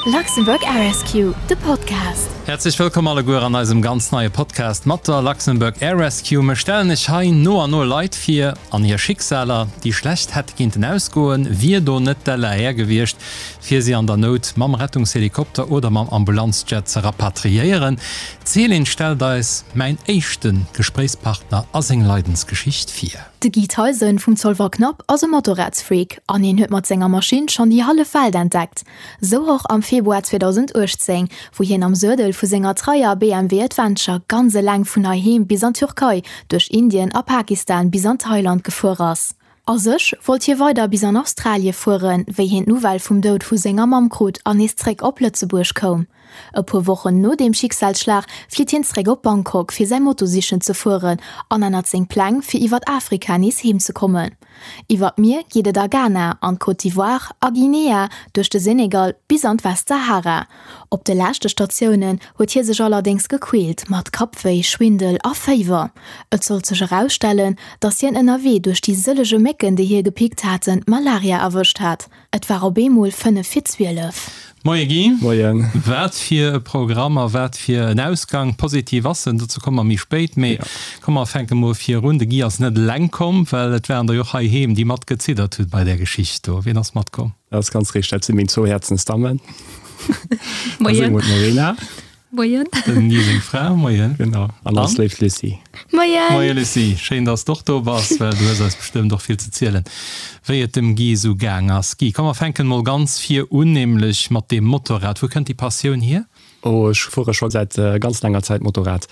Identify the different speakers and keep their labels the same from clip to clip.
Speaker 1: Luxembourg Air Rescue, de Podcast.
Speaker 2: Häerzlech wëllkomm alleguer an eisem ganz neie Podcast mat der Luxembourg Air Rescue. Mir stellen iech hei no an no Leit vir an hir Schicksaler, déi schlecht hätte kinnten ausgoen, wier do net d'LAR gewiescht, fir si an der Nout mam Rettungshelikopter oder mam Ambulanzjet ze rapatriéieren. D'Céline stellt eis mäin éischte Gespréichspartner a seng Leidensgeschicht vir.
Speaker 1: De Guy Theisen vum Zolwer Knapp ass e Motorradsfreak an hien huet mat senger Maschinn schonn déi hallef Welt entdeckt. Sou och am Februar 2018, wou hien am Suedel vu senger treier BMW Adventure ganz eleng vun heiheem bis an d'Türkei, duerch Indien a Pakistan bis an Thailand gefuer ass. A sech wollt hie weider bis an Australie fueren, wéi hien d'Nouvelle vum Doud vu senger Mamm krut an nees zréck op Lëtzebuerg koum. E puer Wochen no deem Schicksalsschlag flitt hien zréck op Bangkok fir säi Moto sichen ze fueren an ännert seng Pläng fir iwwert Afrika nees heem ze kommen. Iwwer d'Mier geet et a Ghana, an d'Côte d'Ivoire, a Guinea, duerch de Senegal bis an d'Westsahara. Op de leschte Statiounen huet hie sech allerdéngs gequält mat Kappwéi, Schwindel a Féiwer. Et sollt sech erausstellen, datt hien ënnerwee duerch déi sëllege Mécken déi hie gepickt haten, Malaria erwëscht hat. Et war op eemol 5 vir 12.
Speaker 2: Moie Guy.
Speaker 3: Moien.
Speaker 2: Wat fir e Programm a wat fir en Ausgang. Positiv ass en, dozou komme mer méi spéit. Mee komm mer fänke mol virun. De Guy ass net eleng komm, well et waren der jo och heiheem, déi mat geziddert hunn bei där Geschicht do. Wien ass matkomm?
Speaker 3: Dat ass ganz richteg, dat si meng zwou Häerzensdammen.
Speaker 4: Moien.
Speaker 3: D'Morena.
Speaker 4: Moien.
Speaker 2: Dem Guy seng Fra, moien.
Speaker 3: Genau, an eis léif Lucie.
Speaker 4: Moien.
Speaker 2: Moie Lucie, schéin dass de och do bass, well du hues eis bestëmmt och vill ze zielen, wéi et dem Guy esou gaang ass. Guy, komm mer fänken mol ganz vir un, nämlech mat deem Motorrad. Wou kënnt déi Passioun hier?
Speaker 3: Oh, ech fuere scho säit ganz laanger Zäit Motorrad.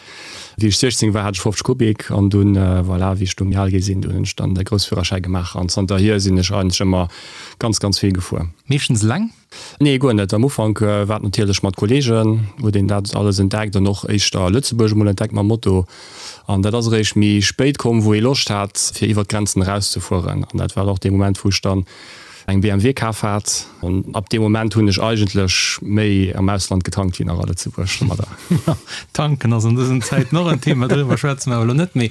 Speaker 3: Wéi ech 16 war, hat ech 50 Kubik an dunn, voilà, wéi ech du méi al gi sinn, dunn hunn ech dann de Groussführerschäi gemaach an zanterhier sinn ech eigentlech ëmmer ganz, ganz vill gefuer.
Speaker 2: Meeschtens eleng?
Speaker 3: Nee, guer net. Am Ufank war et natierlech mat Kolleegen, huet een dat alles entdeckt an och éischter Lëtzebuerg emol entdeckt mam Moto. An dat ass eréischt méi spéit komm, wou ee Loscht hat, fir iwwer d'Grenzen erauszefueren. An dat war och dee Moment, wou ech dann eng BMW kaf hat. An ab deem Moment hunn ech eigentlech méi am Ausland getankt wéi nach a Lëtzebuerg domadder.
Speaker 2: Tanken ass an dësen Zäiten och en Thema, doriwwer schwätze mer awer elo net méi.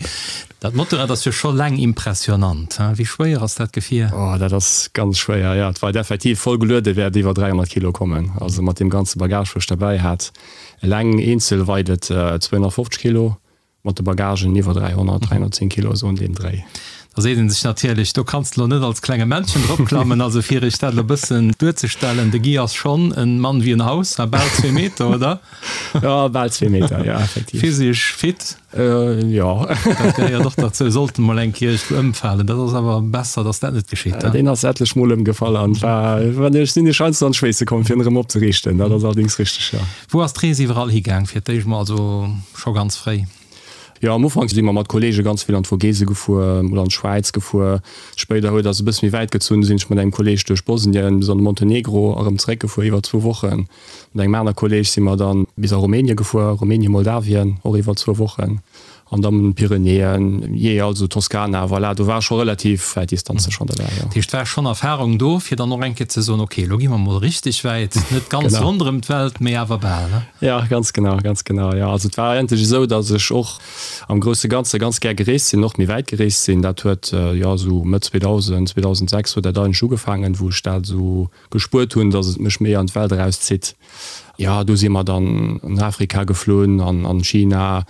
Speaker 2: Dat Motorrad ass jo scho laang impressionant, hein? Wéi schwéier ass dat Gefier?
Speaker 3: Oh, dat ass ganz schwéier, jo. Et weit effektiv voll geluede wäert iwwer 300 Kilo kommen. Also mat deem ganze Bagage, wou ech derbäi hat. Eleng eenzel weit et 250 Kilo, mat de Bagagen iwwer 300, 310 Kilo, esou an deem Dréi.
Speaker 2: Da seet een sech natierlech, do kanns de lo net als klenge Männchen dropklammen. Also fir iech dat elo bëssen duerzestellen, de Guy ass schonn en Mann wéi en Haus, hein, bal zwee Meter, oder?
Speaker 3: Jo, bal zwee Meter, jo, effektiv.
Speaker 2: Physisch fit.
Speaker 3: Jo.
Speaker 2: Dat gehéiert och derzou. Sollt en mol eng Kéier iergendwou ëmfalen, dat ass awer besser, datt dat net geschitt.
Speaker 3: Deen ass etlech mol ëmgefall an war, ech sinn ech heiansdo an d'Schweesse komm, fir en erëm opzeriichten. Dat ass allerdéngs richteg, jo.
Speaker 2: Wou ass d'Rees iwwerall higaang fir d'éischt mol, also scho ganz fréi?
Speaker 3: Jo, am Ufank si mer mat Kollege ganz vill an d'Vogese gefuer oder an d'Schwäiz gefuer. Spéider huet ass e bësse méi wäit gezunn, du sinn ech mat engem Kolleg duerch Bosnien bis an de Montenegro a rëm zeréckgefuer iwwer zwou Wochen. Mat engem aner Kolleg si mer dann bis a Rumänien gefuer, Rumänien, Moldawien, och iwwer zwou Wochen, an dann Pyrenäen, jee, also Toskana, voilà, do war scho relativ wäit Distanze schonn derbäi, jo.
Speaker 2: Dat heescht, war schonn Erfahrung do, fir dann och eng Kéier ze soen, ok, elo gi mer mol richteg wäit, net ganz ronderëm d'Welt, mee awer bal, ne?
Speaker 3: Jo, ganz genau, ganz genau, jo. Also et war eigentlech esou, datt ech och am grousse Ganze ganz gär gereest sinn, och méi wäit gereest sinn. Dat huet, jo, esou Mëtt 2000, 2006 huet dat eigentlech ugefaangen, wou ech dat esou gespuert hunn, dass et mech méi an d'Welt erauszitt. Jo, do si mer dann an Afrika geflunn an an China,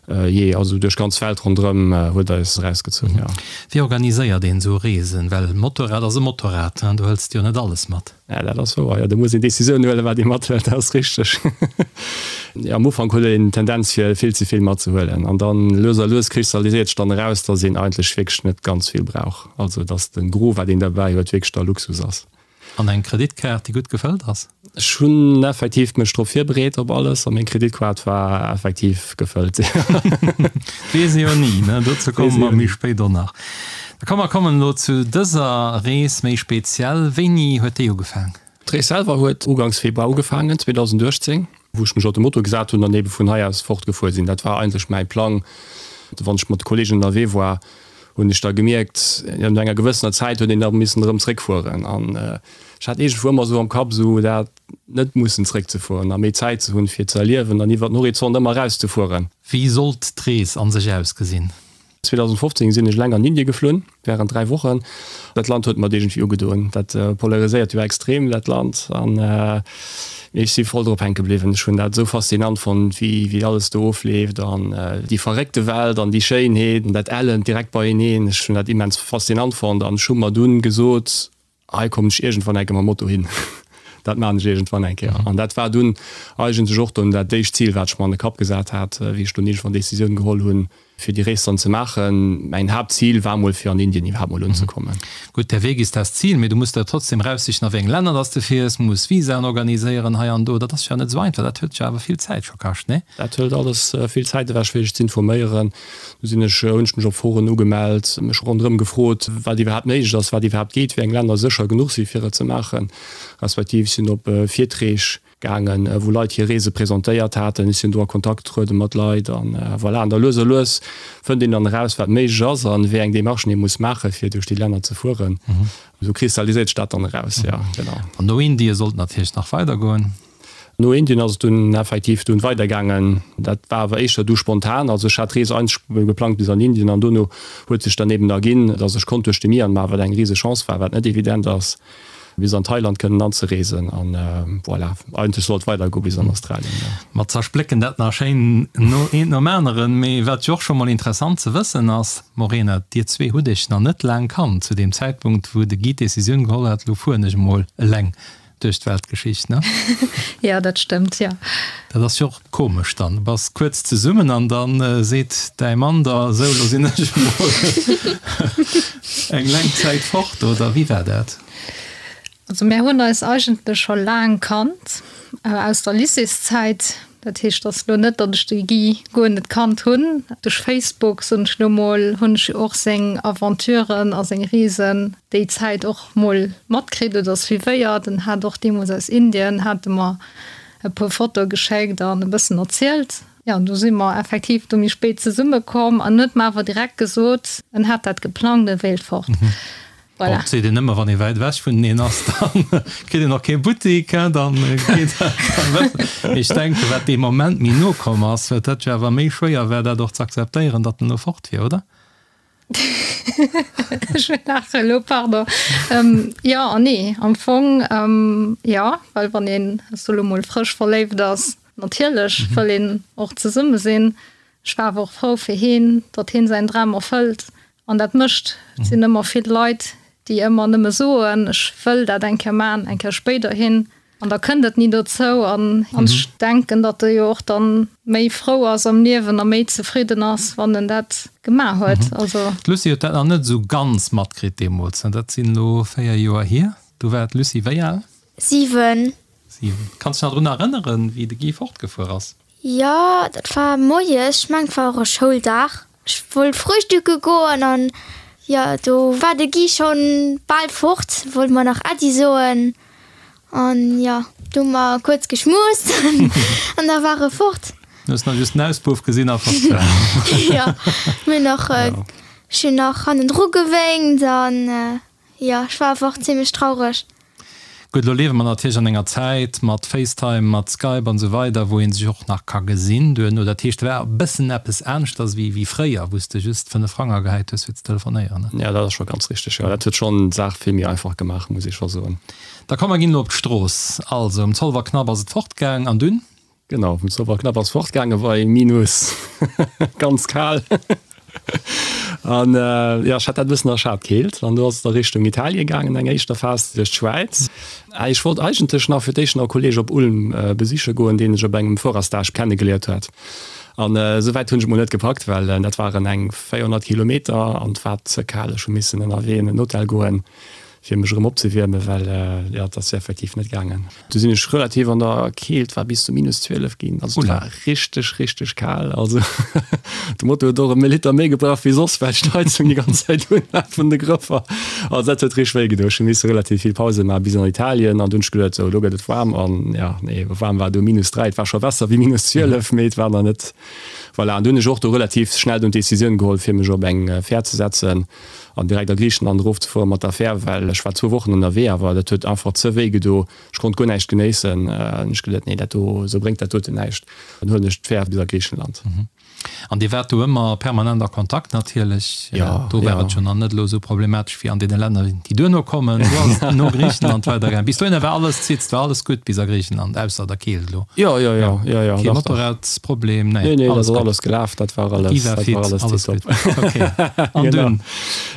Speaker 3: jee, also duerch ganz Welt ronderëm huet eis erausgezunn, jo.
Speaker 2: Wéi organiséiert een esou Reesen? Well Motorrad ass e Motorrad, do hëls de jo net alles mat.
Speaker 3: Ja, dat ass wouer, jo, do muss een Decisioun huelen, wat ee mathëlt, dat ass richteg. Jo, am Ufank huet een d'Tendenz fir vill ze vill matzehuelen an dann lues a lues kristalliséiert sech dann eraus, dass een eigentlech wierklech net ganz vill brauch, also dass de Gros wat een derbäi huet wierklech da Luxus ass.
Speaker 2: An eng Kreditkaart, déi gutt gefëllt ass?
Speaker 3: Ech hunn effektiv mech drop virbereet op alles a meng Kreditkaart war effektiv gefëllt.
Speaker 2: Weess ee jo ni, ne? Dozou komme mer méi spéit och nach. Da komm mer kommen elo zu dëser Rees méi speziell. Wéini huet déi ugefaang?
Speaker 3: D'Rees selwer huet ugangs Februar ugefaangen, 2018, wou ech mech op de Moto gesat hunn an ebe vun hei aus fortgefuer sinn. Dat war eigentlech mäi Plang. Wann ech mat de Kolleegen ënnerwee war, hunn ech da gemierkt, no enger gewëssener Zäit huet een da missen erëm zréckfueren an ech hat iergendwou ëmmer esou am Kapp esou dat net mussen zréckzefueren a méi Zäit ze hunn fir ze erliewen an iwwer den Horizont ëmmer erauszefueren.
Speaker 2: Wéi sollt d'Rees an sech ausgesinn?
Speaker 3: 2015 sinn ech eleng an Indie geflunn während 3 Wochen. Dat Land huet mer et iergendwéi ugedoen. Dat polariséiert jo extrem dat Land an. Mee ech si voll drop hänke bliwwen. Ech hunn dat esou faszinant fonnt, wéi wéi alles do ofleeft an déi verréckte Welt an déi Schéinheet an dat Ellent direkt beieneen. Ech hunn dat immens faszinant fonnt an ech hu mer dunn gesot, hei kommen ech iergendwann eng Kéier mam Moto hin. Dat maachen ech iergendwann eng Kéier. An dat war dunn eigentlech och dunn dat éischt Zil, wat ech mer an de Kapp gesat hat, wéi ech dunn iergendwann d'Decisioun geholl hunn, fir déi Rees dann ze maachen. Mäin Haaptzil war mol fir an Indien iwwerhaapt mol unzekommen.
Speaker 2: Gutt, der Weg ist das Ziel, mee du muss der trotzdem raussichen a wéi eng Länner dass de fiers, muss Visaen organiséieren hei an do. Dat ass jo net esou einfach, dat huet jo awer vill Zäit scho kascht, nee?
Speaker 3: Dat hëlt alles vill Zäit ewech fir sech z'informéieren. Du sinn ech, hunn ech mech op Foren ugemellt, mech ronderëm gefrot, wat iwwerhaapt méiglech ass, wat iwwerhaapt geet, wéi eng Länner sécher genuch si fir et ze maachen, respektiv sinn op Virtreeg Gaangen, wou Leit hir Reese presentéiert haten. Ech sinn do a Kontakt getruede mat Leit an voilà. An da lues a lues fënnt een dann eraus, wat méiglech ass an wéi eng Demarchen ee muss maachen, fir duerch déi Länner ze fueren. Esou kristalliséiert sech dat dann eraus, jo, genau.
Speaker 2: An no Indien sollt et natierlech nach weidergoen.
Speaker 3: No Indien ass et dunn effektiv dunn weidergaangen. Dat war awer éischter du spontan. Also ech hat d'Rees eigentlech geplangt bis an Indien an dono huet sech dann eben erginn, dass ech konnt duerch de Myanmar, wat eng rise Chance war, wat net evident ass, bis an Thailand kënnen anzereesen an voilà, eigentlech sollt et weider goe bis an Australien, jo.
Speaker 2: Mer zersplécken dat nach schéin no eent nom aneren, mee wat jo och scho mol interessant ze wëssen ass, Morena, dir zwee hutt iech nach net laang kannt zu deem Zäitpunkt wou de Guy d'Decisioun geholl hat, lo fueren ech emol eleng duerch d'Weltgeschicht, ne?
Speaker 4: Jo, dat stëmmt, jo.
Speaker 2: Dat ass jo och komesch dann, du bass kuerz zesummen an dann seet däi Mann der, sou lo sinn ech emol eng laang Zäit fort, oder wéi war dat?
Speaker 4: Also mär hunn eis eigentlech scho laang kannt, aus der Lycéeszäit. Dat heescht, et ass elo net, datt ech de Guy guer net kannt hunn. Duerch Facebook, soen ech elo mol, hunn ech jo och seng Aventuren a seng Reesen déi Zäit och mol matkritt oder suivéiert. En hat och deemools aus Indien, hat e mer e puer Fotoe geschéckt an e bëssen erzielt. Jo, du si mer effektiv du méi spéit zesumme komm an en huet mer awer direkt gesot, en hat dat geplangt, e wéilt fort.
Speaker 2: Voilà. Bon, seet een ëmmer, wann ee wäit ewech vuneneen ass, da kritt een och kee Buttik, hein, dann geet dat dann besser. Mee ech denken, wat dee Moment méi no komm ass, wat dat jo awer méi schwéier war, dat och ze akzeptéieren, datt en elo fort wier, oder?
Speaker 4: Ech laache elo, pardon. Jo an nee. Am Fong jo, well wann een, ech soe lo mol, frësch verléift ass, natierlech wëll een och zesumme sinn. Ech war awer och frou fir heen, datt heen säin Dram erfëllt an dat mécht. Et sinn ëmmer vill Leit, déi ëmmer nëmme soen, ech wëll dat eng Kéier maachen, eng Kéier spéiderhin. An da kënnt et ni dozou. An ech denken, datt e jo och dann méi frou ass am Liewen a méi zefridden ass, wann en dat gemaach huet.
Speaker 2: Also. D'Lucie huet dat nach net esou ganz matkritt deemools, ne? Dat sinn elo 4 Joer hier. Du war d'Lucie wéi al?
Speaker 5: 7.
Speaker 2: 7. Kanns dech nach drun erënneren, wéi de Guy fortgefuer ass?
Speaker 5: Jo, dat war moies, ech mengen et war och e Schouldag. Ech wollt frühstücke goen an jo, do war de Guy schonn bal fort, wollt mer nach Äddi soen an jo, du hu mer kuerz geschmust an da war e fort.
Speaker 2: Du hues nach just den Auspuff gesinn a fort
Speaker 5: war. Jo, mir hunn nach, ech hunn nach hannendru gewénkt an Jo, ech war einfach zimlech traureg.
Speaker 2: Gutt, elo liewe mer natierlech an enger Zäit mat FaceTime, mat Skype an esou weider, wou ee sech och nach ka gesinn duerno. Dat heescht, et war e bëssen eppes aneschters wéi fréier, wou s de just 5 Frang agehäit hues fir ze telefonéieren, ne?
Speaker 3: Jo, dat ass scho ganz richteg, jo. Dat huet schonn d'Saach vill méi einfach gemaach, muss ee scho soen.
Speaker 2: Da komm, mer ginn elo op d'Strooss. Also, um Zolwerknapp ass et fortgaang an dunn?
Speaker 3: Genau, vum Zolwerknapp ass fortgaange bei minus ganz kal. An jo, ech hat dat e bëssen erschat, d'Keelt. An do ass et a Richtung Italien gaangen, eng éischter Phas duerch d'Schwäiz. Ech wollt eigentlech nach fir d'éischt nach e Kolleeg op Ulm besiche goen, deen ech op engem Fuererstage kennegeliert hat. An esou wäit hunn ech et mol net gepackt, well dat waren eng 400 Kilometer an et war ze kal. Ech hu missen ënnerwee an en Hotel goen. fir mech erëm opzewiermen, well jo, et ass effektiv net gaangen. Du sinn ech relativ an der Keelt, war bis zu minus 12 ginn, also et war richteg, richteg kal. Also de Moto huet och e Liter méi gebraucht wéi soss, well ech d'Heizung déi ganz Zäit un hat vun de Grëffer. Also dat huet richteg wéi gedoen. Ech hu misse relativ vill Pause maachen bis an Italien an dunn hunn ech geduet, sou elo gëtt et waarm an jo, nee, waarm war du minus 3, et war scho besser wéi minus 12, mee et war nach net, voilà. An du hunn ech och do relativ schnell dunn d'Decisioun geholl, fir mech op eng Fähr ze setzen. An direkt a Griichenland erofzefueren mat der Fähr, well ech war zwou Wochen ënnerwee, awer dat huet einfach ze wéi gedo. Ech konnt guer näischt genéissen. An ech geduet, nee, dat do, esou bréngt dat doten näischt. Dann huelen ech d'Fähr bis a Griichenland.
Speaker 2: An Dir waart do ëmmer permanent a Kontakt natierlech.
Speaker 3: Jo,
Speaker 2: Do war et jo nach net elo esou problematesch wéi an deene Länner, déi duerno kommen. Do ass et no Griichenland weidergaangen. Bis dohinner war alles zitzt, war alles gutt bis a Griichenland, ausser der Keelt elo.
Speaker 3: Jo, jo, jo, jo, jo.
Speaker 2: Kee Motorradsproblem,
Speaker 3: nee, Nee, nee, dat ass alles gelaf, dat war alles,
Speaker 2: Déi war
Speaker 3: dat war
Speaker 2: fit,
Speaker 3: alles
Speaker 2: alles
Speaker 3: tiptop.
Speaker 2: gutt. Okay. An dunn?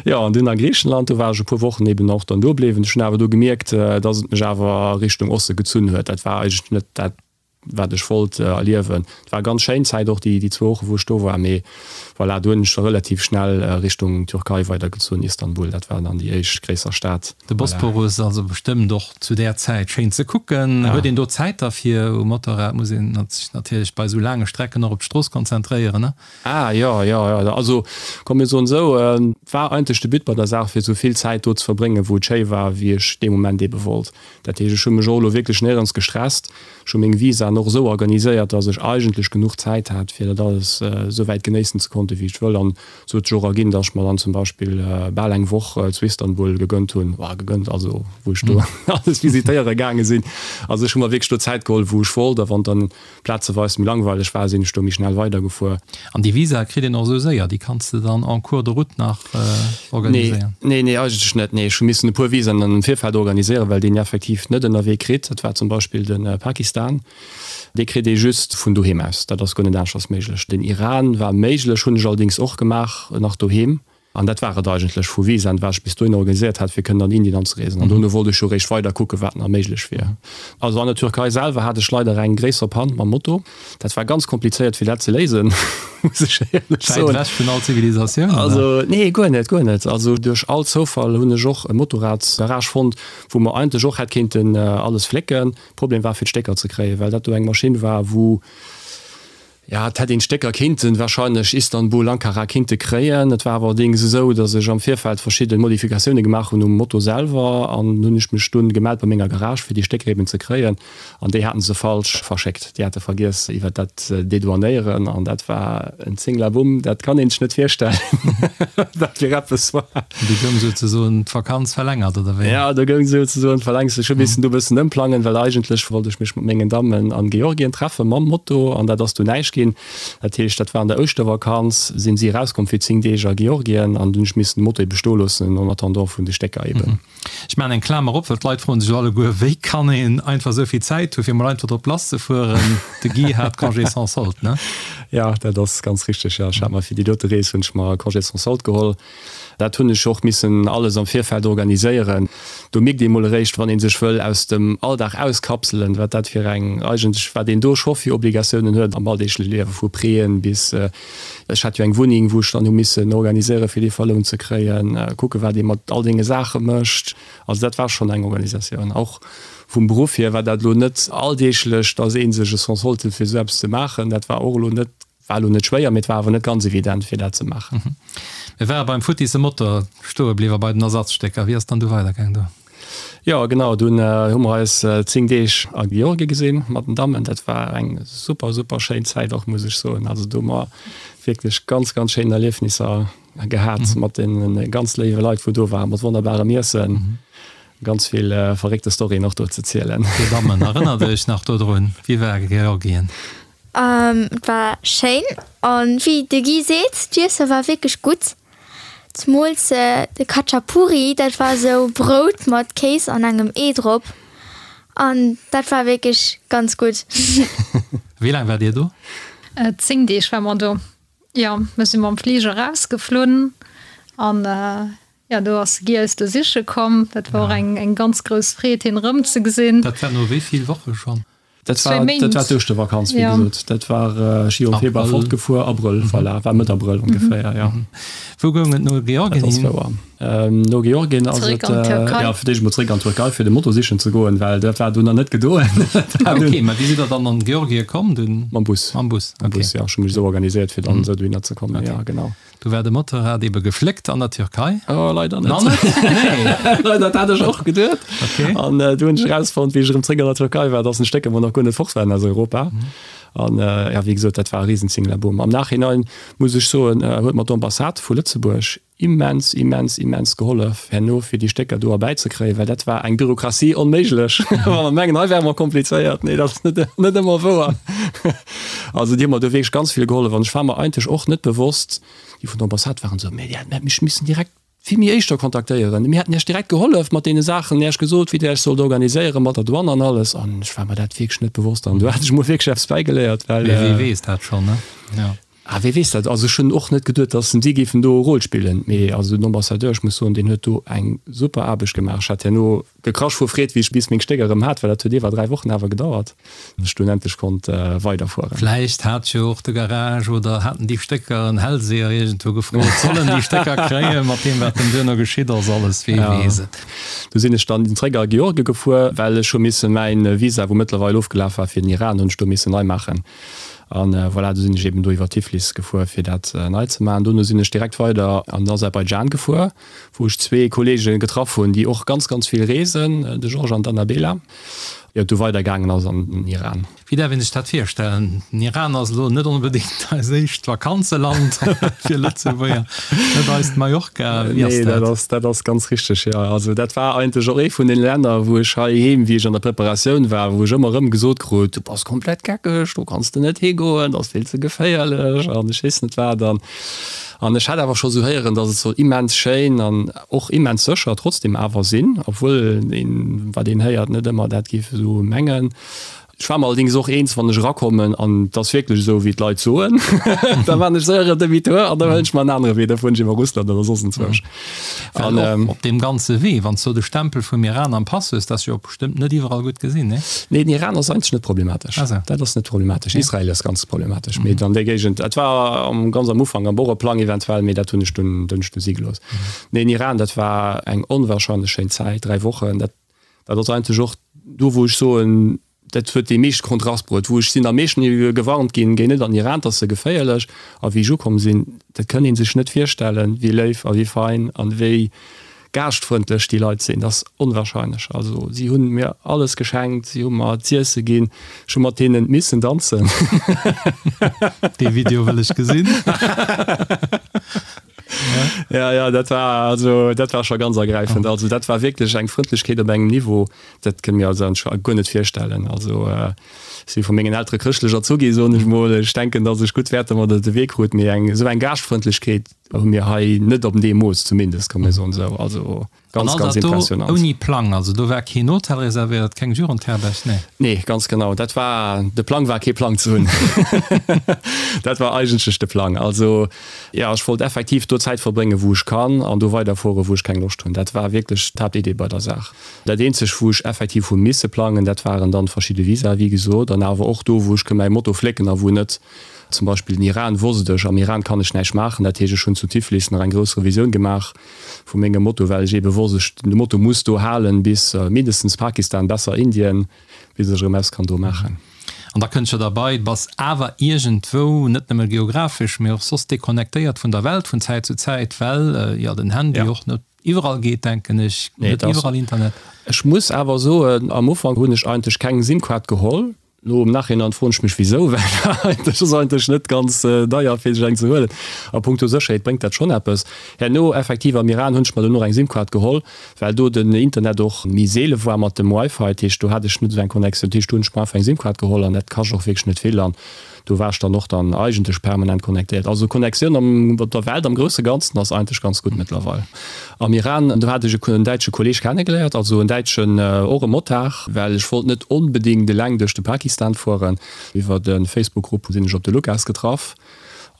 Speaker 3: Jo, an dunn a Griichenland, do war ech e puer Wochen eben och dann do bliwwen. Ech hunn awer do gemierkt, dass et mech awer a Richtung Oste gezunn huet. Dat war eigentlech net dat, wat ech wollt erliewen. Et war ganz schéin Zäit och déi zwou Woche wou ech do war, mee voilà, do hunn ech da relativ schnell Richtung Türkei weidergezunn, Istanbul, dat war dann déi éischt gréisser Stad.
Speaker 2: De Bosporus also bestëmmt och zu där Zäit schéin ze kucken. Huet een do Zäit derfir? Um Motorrad muss een sech natierlech bei esou laange Strecken och op d'Strooss konzentréieren, ne?
Speaker 3: Ah jo, jo, jo. Also komm mir soen esou, et war eigentlech de But bei der Saach fir esou vill Zäit do ze verbréngen wou et schéi war, wéi ech dee Moment eebe wollt. Dat heescht, ech hu mech och elo wierklech néierens gestresst. Ech hu meng Visaen och esou organiséiert, dass ech eigentlech genuch Zäit hat, fir dat alles esou wäit genéissen ze konnten, wéi ech wëll. An esou huet sech och erginn, dass ech mer dann zum Beispill bal eng Woch zu Istanbul gegönnt hunn, enfin gegönnt, also wou ech do alles visitéiere gaange sinn. Also ech hu mer wierklech do Zäit geholl, wou ech wollt. A wann dann plazeweis méi langweileg war, sinn ech do méi schnell weidergefuer.
Speaker 2: An déi Visa kritt een och esou séier? Déi kanns de dann en cours de route nach organiséieren?
Speaker 3: Nee, nee, eigentlech net. Nee, ech hu missen e puer Visaen am Virfeld organiséieren, well deen effektiv net ënnerwee kritt. Dat war zum Beispill de Pakistan. Dee kritt ee just vun doheem aus. Dat ass guer net aneschters méiglech. Den Iran war méiglech, hunn ech allerdéngs och gemaach, nach doheem. An dat war et eigentlech vu Visaen, wat ech bis dohinner organiséiert hat, fir kënnen an Indien anzereesen. An dono wollt ech jo eréischt weider kucken, wat nach méiglech wier. Also an der Türkei selwer hat ech leider eng gréisser Pann mam Moto. Dat war ganz komplizéiert, fir dat ze léisen, muss ech éierlech
Speaker 2: soen. Wäit ewech vun all Zivilisatioun,
Speaker 3: oder? Also, nee, guer net, guer net. Also duerch all Zoufall hunn ech och e Motorradsgarage fonnt, wou mer eigentlech och hätt kéinten alles flécken. Problem war, fir d'Stécker ze kréien, well dat do eng Maschinn war, wou, Jo, et hätt een d'Stécker kinnten, wahrscheinlech Istanbul, Ankara, kinnte kréien. Et war awer allerdéngs esou, datt ech am Virfeld verschidde Modifikatioune gemaach hunn um Moto selwer an hunn ech mech dunn gemellt bei menger Garage fir déi Stécker eben ze kréien an déi haten se falsch verschéckt. Déi hate vergiess iwwer dat Dedouanéieren an dat war en Zinglabumm, dat kann een sech net virstellen, wat fir eppes
Speaker 2: war. Do goung souzesoen d'Vakanz verlängert, oder wéi?
Speaker 3: Jo, do goung souzesoen d'Verlängs. Ech hu missen do e bëssen ëmplangen, well eigentlech wollt ech mech mat mengen Dammen an Georgien treffe mam Moto an dat ass du näischt ginn. Dat heescht, dat war an der Ouschtervakanz, sinn si erauskomm fir 10 Deeg a Georgien an dunn hu ech missen de Moto ebe stoe loossen en attendant vun de Stécker eben.
Speaker 2: Ech maachen eng Klamer op, well d'Leit froen sech alleguer, wéi kann een einfach esou vill Zäit hu fir mol einfach drop lass ze fueren? De Guy hat Congé sans solde, ne?
Speaker 3: Jo, dat ass ganz richteg, jo. Ech hat mer fir déi dote Rees hunn ech mer Congé sans solde geholl. Dat hunn ech och missen alles am Virfeld organiséieren. Do mierkt ee mol eréischt, wann ee sech wëll aus dem Alldag auskapselen, wat dat fir eng, eigentlech wat een do scho fir Obligatiounen huet am alldeegleche Liewen, vu Prêten bis, ech hat jo eng Wunneng, wou ech dann hu missen organiséieren, fir déi verlount ze kréien, kucke wat ee mat all deene Saache mécht. Also dat war schonn eng Organisatioun. Och vum Beruff hier war dat elo net alldeeglech, datt ee sech e Sans solde huet fir esou eppes ze maachen. Dat war och elo net War elo net schwéier, mee et war awer net ganz evident fir dat ze maachen.
Speaker 2: Mir ware beim futtisse Motor stoe bliwwer, bei den Ersatzstécker. Wéi ass dann du weidergaang do?
Speaker 3: Jo genau, dunn hu mer eis 10 Deeg a Georgien gesinn mat den Dammen. Dat war eng super super schéin Zäit och, muss ech soen. Also do hu mer wierklech ganz ganz schéin Erliefnisser gehat mat den ganz léiwe Leit wou do waren, mat wonnerbarem Iessen. Ganz vill verréckte Storyen och do ze zielen.
Speaker 2: Dir Dammen, erënnert Iech nach dodrun? Wéi war Georgien?
Speaker 5: Et war schéin an wéi de Guy seet, d'Iesse war wierklech gutt. Zemools de Khachapuri, dat war esou Brout mat Kéis an engem Ee drop an dat war wierklech ganz gutt.
Speaker 2: Wéi laang waart Dir do?
Speaker 4: 10 Deeg war mer do, jo. Mir si mam Fliger erausgeflunn an jo, do ass de Guy eis do siche komm. Dat war och eng ganz grouss Freed, hien erëmzegesinn.
Speaker 2: Dat war no wéi vill Woche schonn?
Speaker 3: Dat war, dat war d'Ouschtervakanz, wéi gesot. Dat war, ech si jo am Februar fortgefuer, Abrëll, voilà, war Mëtt Abrëll ongeféier, jo.
Speaker 2: Wou goung et no Georgien
Speaker 3: hin? Dat ass wouer. No Georgien ass et, jo, fir d'éischt emol zréck an d'Türkei, fir de Moto sichen ze goen, well dat war dunn nach net gedoen.
Speaker 2: Ah, okay, mä wéi sidd Der dann an Georgien komm dunn?
Speaker 3: Mam Bus.
Speaker 2: Mam Bus,
Speaker 3: okay. Mam Bus, jo. Ech hu mech esou organiséiert, fir dann esou dohinner ze kommen, jo, genau.
Speaker 2: Du war de Motorrad ebe gefléckt an der Türkei?
Speaker 3: Oh, leider net. Nach net? Nee. Leider, dat hat ech och geduet.
Speaker 2: Okay.
Speaker 3: An du hunn ech erausfonnt, wéi ech erëm zréck an der Türkei war, dass en Stécker mer nach guer net fort waren aus Europa. An ja, wéi gesot, dat war e Riesenzinglaboom. Am Nachhinein muss ech soen, huet mer d'Ambassade vu Lëtzebuerg immens, immens, immens gehollef herno, fir déi Stécker do erbäizekréien, well dat war eng Bürokratie onméiglech. Wa mer mengen, hei wäre mer komplizéiert, nee, dat ass net, net ëmmer wouer. Also déi hu mer do wierklech ganz vill gehollef an ech war mer eigentlech och net bewosst, déi vun der Ambassade waren esou, Mee Dir hätt mech missen direkt vill méi éischter kontaktéieren, mir hätten Iech direkt gehollef mat deene Saachen, Iech gesot, wéi Dir Iech sollt organiséieren mat der Douane an alles. An ech war mer dat wierklech net bewosst an do hat ech mol wierklech eppes bäigeléiert, well.
Speaker 2: Mee wee weess dat schonn, ne?
Speaker 3: Jo. Ah, wee weess dat? Also ech hunn och net geduet, datt si géifen do e Rôle spillen. Mee also den Ambassadeur, ech muss soen, deen huet do eng super Aarbecht gemaach. Ech hat herno gekrasch vu Freed, wéi ech bis meng Stécker erëm hat, well dat huet iwwer 3 Wochen awer gedauert, bis ech dunn endlech konnt weiderfueren.
Speaker 2: Vläicht hat jo och de Garage oder haten déi Stécker en Hellseher iergendwou gefrot, soll en déi Stécker kréien, mat deem wat dann duerno geschitt ass, alles, wee weess et.
Speaker 3: Du sinn ech dann zréck a Georgie gefuer, well ech hu misse mäin Visa, wou mëttlerweil ofgelaf war fir den Iran, hunn ech do missen nei maachen. An voilà, du sinn ech eben do iwwer Tiflis gefuer, fir dat nei ze maachen. Dono sinn ech direkt weider an den Aserbaidschan gefuer, wou ech zwee Kollege getraff hunn, déi och ganz, ganz vill reesen, de Georges an d'Annabela, ier et du weidergaangen ass an den Iran.
Speaker 2: Wéi däerf een sech dat virstellen? Den Iran ass elo net onbedéngt eist éischt Vakanzeland fir Lëtzebuerger, net eist Mallorca.
Speaker 3: Wéi ass dat? Nee, dat ass ganz richteg, jo. Also dat war eigentlech och ee vun den Länner, wou ech heiheem, wéi ech an der Preparatioun war, wou ech ëmmer erëm gesot krut, du bass komplett geckeg, do kanns de net higoen, dat ass vill ze geféierlech an ech weess net wat. An an ech hat awer scho sou héieren, datt et soll immens schéin an och immens sécher trotzdem awer sinn, obwuel een, wat een héiert, net ëmmer dat géif esou mengen. Ech war mer allerdings och eens, wann ech erakommen an et ass wierklech esou, wéi d'Leit soen, da maan ech séier en Demi-tour an da huelen ech mer en anere Wee, da fueren ech iwwer Russland oder soss enzwousch.
Speaker 2: Well och op deem ganze Wee, wann s du de Stempel vum Iran am Pass hues, dat ass jo och bestëmmt net iwwerall gutt gesinn, nee?
Speaker 3: Nee, den Iran ass eigentlech net problematesch. Dat ass net problematesch. Israel ass ganz problematesch, mee an där Géigend, dat war am ganz am Ufank am Boreplang eventuell, mee dat hunn ech dunn hunn ech dunn si gelooss. Nee, den Iran, dat war eng onwahrscheinlech schéin Zäit, 3 Wochen, dat Dat ass eigentlech och do, wou ech soen, dat huet dee meeschte Kontrast bruet, wou ech sinn am meeschten gewarnt ginn, géi net an Iran, dat ass ze geféierlech. A wéi ech ukomm sinn, dat kënnt ee sech net virstellen, wéi léif a wéi fein an wéi gaaschtfrëndlech déi Leit sinn. Dat ass onwahrscheinlech. Also si hunn mir alles geschenkt, si hu mer z'iesse ginn, ech hu mat hinnen missen danzen.
Speaker 2: Dee Video wëll ech gesinn.
Speaker 3: Ja, ja, dat war, also, dat war scho ganz ergräifend. Also, dat war wierklech eng Frëndlechkeet op engem Niveau, dat kënne mir eis eigentlech guer net virstellen. Also, ech si vu mengen Eltere chrëschtlech erzu gi, soen ech mol. Ech denken, datt ech gutt Wäerter mat op de Wee krut, mee eng esou eng Gaaschtfrëndlechkeet hu mir hei net op deem Mooss zumindest, kann mir soen esou. Also,
Speaker 2: Ganz, ganz impressionant. Ouni Plang, also do war keen Hotel reservéiert, keng Jugendherberg,
Speaker 3: nee? Nee, ganz genau. Dat war, de Plang war kee Plang ze hunn. Dat war eigentlech de Plang. Also jo, ech wollt effektiv do Zäit verbréngen, wou ech kann an do weiderfueren, wou ech keng Loscht hunn. Dat war wierklech d'Haaptidee bei der Saach. Dat eenzeg, wou ech effektiv hu misse plangen, dat waren dann verschidde Visae, wéi gesot, an awer och do, wou ech mäi Moto flécken a wou net. Zum Beispill den Iran wosst ech, am Iran kann ech näischt maachen. Dat heescht, ech hunn zu Tiflis nach eng grouss Revisioun gemaach. Vu mengem Moto, well ech ebe wosst, ech, de Moto muss do halen bis mindestens Pakistan, besser Indien, bis ech erëm eppes kann do maachen.
Speaker 2: An da kënnt jo derbei, du bass awer iergendwou, net nëmme geographesch, mee och soss deconnectéiert vun der Welt vun Zäit zu Zäit, well jo den Handy och net iwwerall geet, denken ech, net iwwerall Internet.
Speaker 3: Ech muss awer soen, am Ufank hunn ech eigentlech keng SIM-Kaart geholl, Lo am Nachhinein froen ech mech wisou, well dat ass eigentlech net ganz deier fir sech eng ze huelen. A punkto Sécherheet bréngt dat schonn eppes. Herno effektiv am Iran hunn ech mer dono eng Simkaart geholl, well do den Internet och méi seele war mat dem Wifi. Dat heescht do hat ech net esou eng Connectioun. Dat heescht do hunn ech mer einfach eng Simkaart geholl an dat kascht och wierklech net vill an do war ech dann och dann eigentlech permanent connectéiert. Also Connectioun am op der Welt am grousse Ganzen ass eigentlech ganz gutt mëttlerweil. Am Iran, do hat ech en däitsche Kolleg kennegeléiert, also en däitschen, och e Motard, well ech wollt net onbedéngt eleng duerch de Pakistan fueren. Iwwer e Facebook-Grupp sinn ech op de Lukas getraff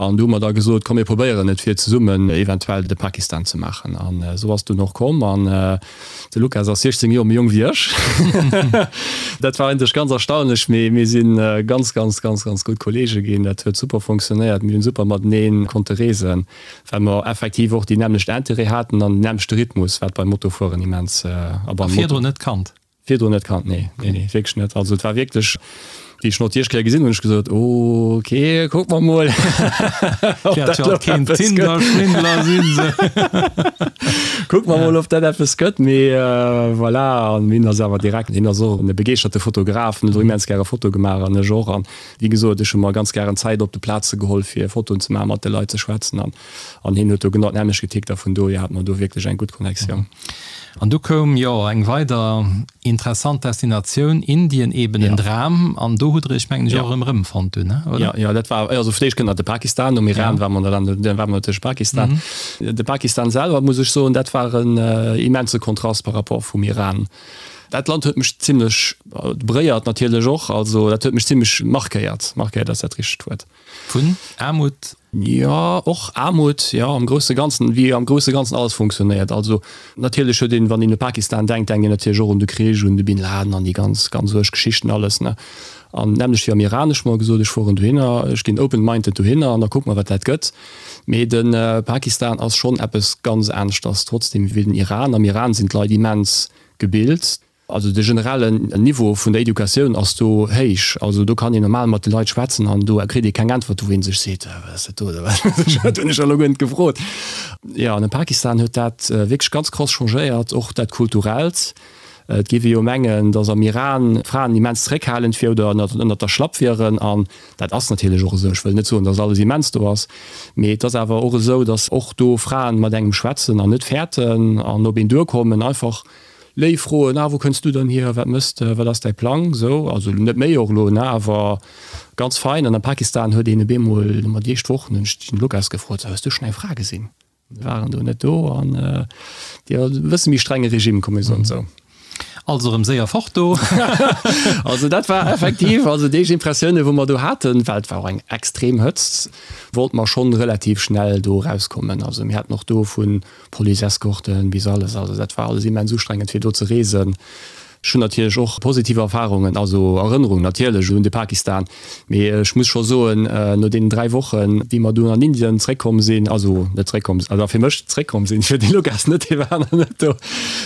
Speaker 3: an do hu mer da gesot, komm mir probéieren et fir zesummen eventuell de Pakistan ze maachen. An esou ass et dunn och komm an de Lukas ass 16 Joer méi jonk wéi ech. Dat war eigentlech ganz erstaunlech, mee mir si ganz, ganz, ganz, ganz gutt Kollege ginn. Dat huet super funktionéiert, mir hunn super matenee konnte reesen. Well mer effektiv och déi nämmlecht Intérêt haten an den nämmlechte Rhythmus, wat beim Motofueren immens
Speaker 2: a beim Moto. Virdrun net kannt?
Speaker 3: Virdrun net kannt, nee, nee, nee, wierklech net. Also et war wierklech, wéi ech en och déi éischt Kéier gesinn hunn, hunn ech gesot, ok, kucke mer mol,
Speaker 2: ob dat elo eppes gëtt. Tinder-Schwindler sinn se.
Speaker 3: Kucke mer mol, ob dat eppes gëtt. Mee voilà, an hien ass awer direkt, hien ass och e begeeschterte Fotograf, en huet och immens gäre Fotoe gemaach an ech och. An Wéi gesot, ech hu mer ganz gären Zäit op de Plaze geholl, fir Fotoen ze maachen, mat de Leit ze schwätzen an an hien huet do genau d'nämmlecht getickt a vun dohier hate mer do wierklech eng gutt Connectioun.
Speaker 2: An du koum jo eng weider interessant Destinatioun, Indien, eben en Dram. An do. do hutt Der Iech, mengen ech, och erëm erëmfonnt dunn,
Speaker 3: oder? Jo, jo, dat war, also fir d'éischt kënnt nach de Pakistan, nom Iran war mer dann, dann war mer natierlech Pakistan. De Pakistan selwer, muss ech soen, dat war en immense Kontrast par rapport vum Iran. Dat Land huet mech zimlech beréiert natierlech och, also dat huet mech zimlech markéiert, markéiert ass dat richtegt Wuert.
Speaker 2: Vun Aarmut?
Speaker 3: Jo, och Aarmut, jo, am grousse Ganzen, wéi am grousse Ganzen alles funktionéiert. Also natierlech huet een, wann een u Pakistan denkt, denkt een natierlech och un de Krich, un de Bin Laden an déi ganz, ganz uerg Geschichten alles, ne. An d'nämmlecht wéi am Iran, ech hu mer gesot, ech fueren dohinner, ech ginn open-minded dohinner an da kucke mer, wat dat gëtt. Mee de Pakistan ass schonn eppes ganz aneschters trotzdem wéi den Iran. Am Iran sinn d'Leit immens gebilt. Also de generellen Niveau vun der Educatioun ass do héich. Also do kann een normal mat de Leit schwätzen an do kritt ee keng Äntwert, wou ee sech seet, wat ass dat do oder wat hunn ech elo guer net gefrot. Jo, an am Pakistan huet dat wierklech ganz krass changéiert, och dat Kulturellt. Et géif ee jo mengen, datt am Iran d'Fraen immens zeréckhalend wier oder ënnert der Schlapp wieren an dat ass natierlech och esou. Ech wëll net soen, datt alles immens do ass, mee et ass awer och esou, datt och do Fraen mat engem schwätzen an net fäerten an op een duerkommen, einfach léif froen, ah wou kënns du dann hier, wat mëss de, wat ass däi Plang, esou. Also net méi och elo, ne, awer ganz fein. An am Pakistan huet een op eemol, mat déi éischt Wochen hunn ech den Lukas gefrot, hues du schonn eng Fra gesinn? Mir waren do net do an jo, e bësse méi strenge Regime, komm mir soen esou.
Speaker 2: Also erëm séier fort do.
Speaker 3: Also dat war effektiv, also déi éischt Impressioune wou mer do haten, well et war och eng extrem Hëtzt, wollte mer schonn relativ schnell do erauskommen. Also mir haten och do vu Police-Escorten bis alles, also dat war alles immens ustrengend fir do ze reesen. Ech hunn natierlech och positiv Erfarungen, also Erënnerungen natierlech un de Pakistan, mee ech muss scho soen, no deenen 3 Wochen, wéi mer dunn an Indien zréckkomm sinn, also net zréckkomm, also fir mech zréckkomm sinn, fir de Lukas net, dee war nach net do,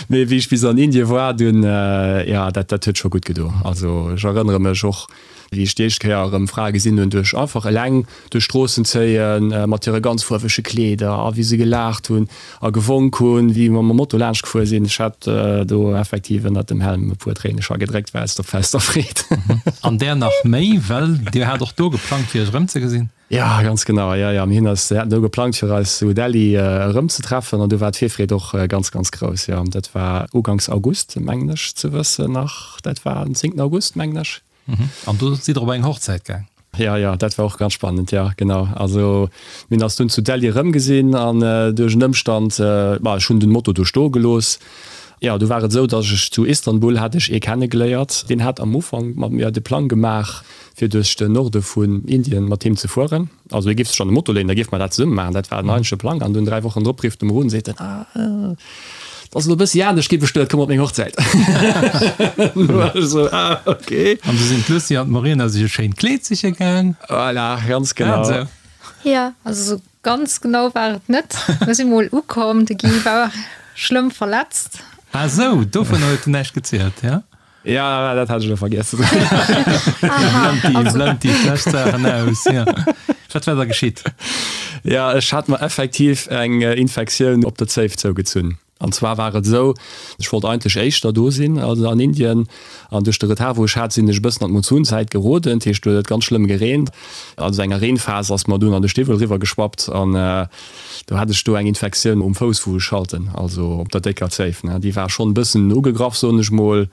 Speaker 3: mee wéi ech bis an Indien war dunn, jo, dat dat huet scho gutt gedo. Also ech erënnere mech och, Wéi ech déi éischt Kéier erëm Frae gesinn hunn, duerch einfach eleng duerch d'Stroossen zéien, mat hire ganz fuerwege Kleeder, a wéi se gelaacht hunn a gewonk hunn, wéi mer mam Moto laanscht gefuer sinn. Ech hat do effektiv ënnert dem Helm e puer Tréine scho gedréckt, war aus der Freed.
Speaker 2: An där nach méi, well Dir hat och do geplangt, fir Iech erëmzegesinn.
Speaker 3: Jo, ganz genau. Jo, jo, mir hunn eis, mir haten do geplangt, fir eis zu Delhi erëmzetreffen an do war d'Virfreed och ganz, ganz grouss. Jo, dat war uganks August, mengen ech ze wëssen nach. Dat war den zéngten August, mengen ech.
Speaker 2: An do sidd Der op eng Hochzäit gaang?
Speaker 3: Jo, jo, dat war och ganz spannend, jo, genau. Also mir hunn eis dunn zu Delhi erëmgesinn an duerch en Ëmstand, ma ech hunn den Moto do stoe gelooss. Jo, du war et esou, dass ech zu Istanbul hat ech ee kennegeléiert, deen hat am Ufank mat mir de Plang gemaach, fir duerch den Norde vun Indien mat him ze fueren. Also hie géif sech an de Moto léinen, da géife mer dat zesumme maachen. Dat war den eigentleche Plang. An dunn 3 Wochen drop rifft e mer un, seet en, Ah, et ass elo e bëssi anescht gi bestuet, komm op meng Hochzäit. Du war ech esou, Ah, okay.
Speaker 2: An du sinn d'Lucie an d'Morena sech e schéint Kleed siche gaang.
Speaker 3: Voilà, ganz genau.
Speaker 4: Jo. Also esou ganz genau war et net. Mir si mol ukomm, de Guy war schlëmm verletzt.
Speaker 2: Ah sou, dovun huet en näischt gezielt, ja?
Speaker 3: Ja, dat hat ech elo vergiess.
Speaker 2: Blend déi, déi schlecht Saachen aus, ja. Wat war da geschitt?
Speaker 3: Ja, ech hat mer effektiv eng Infektioun op der Zéif zougezunn. An zwar war et esou, ech wollt eigentlech éischter do sinn, also an Indien, an duerch de Retard wou ech hat, sinn ech e bëssen an d'Monsunzäit geroden, dat heescht do huet et ganz schlëmm gereent. An esou enger Reenphas ass mer dunn an de Stiwwel eriwwer geschwappt an do hat ech do eng Infektioun um Fouss wou ech schalten, also op der décker Zéif, ne. Déi war schonn e bëssen ugegraff, soen ech mol.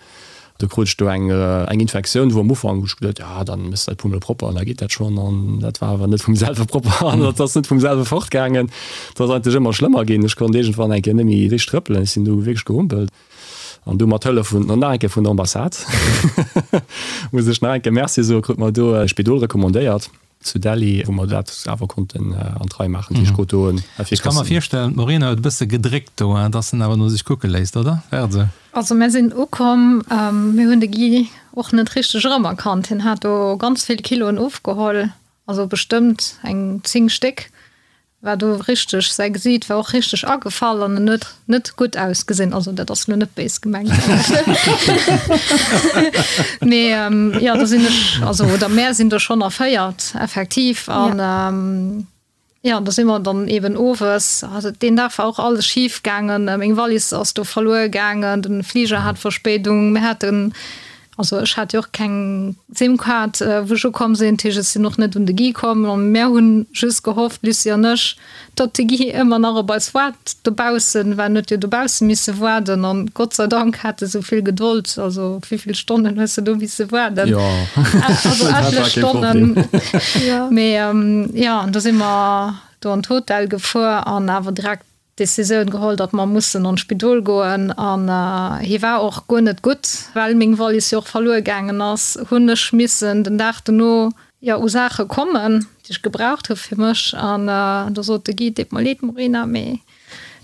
Speaker 3: Do krut ech do eng eng Infektioun, wou am Ufank hu ech geduet, ja dann méchs de dat puer mol propper an da geet dat schonn. An dat war awer net vum selwe propper an dat ass net vum selwe fortgaangen. Et ass eigentlech ëmmer schlëmmer ginn. Ech konnt iergendwann eng Kéier net méi richteg trëppelen, ech sinn du wierklech gehumpelt. An du mat Hëllef vun, nach eng Kéier vun der Ambassade, muss ech nach eng Kéier Merci soen, krut mer do e Spidol recommandéiert. Zu Delhi, wou mer dat awer konnten an d'Rei maachen. Déi Ech do en
Speaker 2: Ech ka mer virstellen, d'Morena huet e bësse gedréckt do, hein, dass en awer no sech kucke léisst, oder? War et esou?
Speaker 4: Also mär sinn ukomm, mir hunn de Guy och net richteg erëmerkannt. Hien hat do ganz vill Kiloen ofgeholl, also bestëmmt eng 10 Stéck. War do richteg, säi Gesiit war och richteg agefall an en huet net gutt ausgesinn. Also dat ass lo net béis gemengt. Mee jo, do sinn ech, also oder mär sinn do schonn erféiert effektiv an jo, do si mer dann eben owes, also deen Dag war och alles schif gaangen, meng Wallis ass do verluer gaangen, den Fliger hat Verspéidung, mir haten. Also ech hat jo och keng Sim-Kaart, wou ech ukomm sinn, dat heescht ech sinn och net un de Guy komm. An mär hunn just gehofft, d'Lucie an ech, datt de Guy ëmmer nach op eis waart dobaussen, well en huet jo dobausse misse waarden. An Gott sei Dank hat e sou vill Gedold. Also wéivill Stonnen hues de do misse waarden?
Speaker 3: Jo,
Speaker 4: also etlech Stonnen. Mee jo, an du si mer do an d'Hotel gefuer an awer direkt d'Decisioun geholl, datt mer mussen an d'Spidol goen an hie war och guer net gutt. Well meng Wallis jo och verluer gaangen ass, hunn ech missen den Dag dono jo u Saache kommen, déi ech gebraucht hu fir mech. An do sot de Guy, Deet mer leed Morena, mee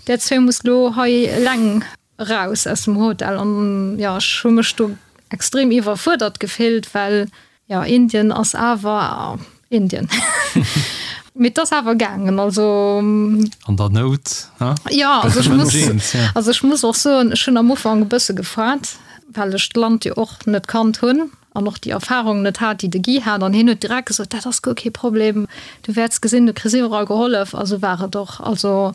Speaker 4: där zwee musst lo hei eleng eraus aus dem Hotel. An jo, ech hu mech do extrem iwwerfuerdert gefillt, well jo, Indien ass awer Indien. Mee et ass awer gaangen, also.
Speaker 2: An der Nout,
Speaker 4: ne? Jo, also ech muss, also ech muss och soen, ech hunn am Ufank e bësse gefaart, well ech d'Land jo och net kannt hunn an och déi Erfahrung net hat, déi de Guy hat. An hien huet direkt gesot, dat ass guer kee Problem, du wäerts gesinn, du kriss iwwerall gehollef. A sou war et och. Also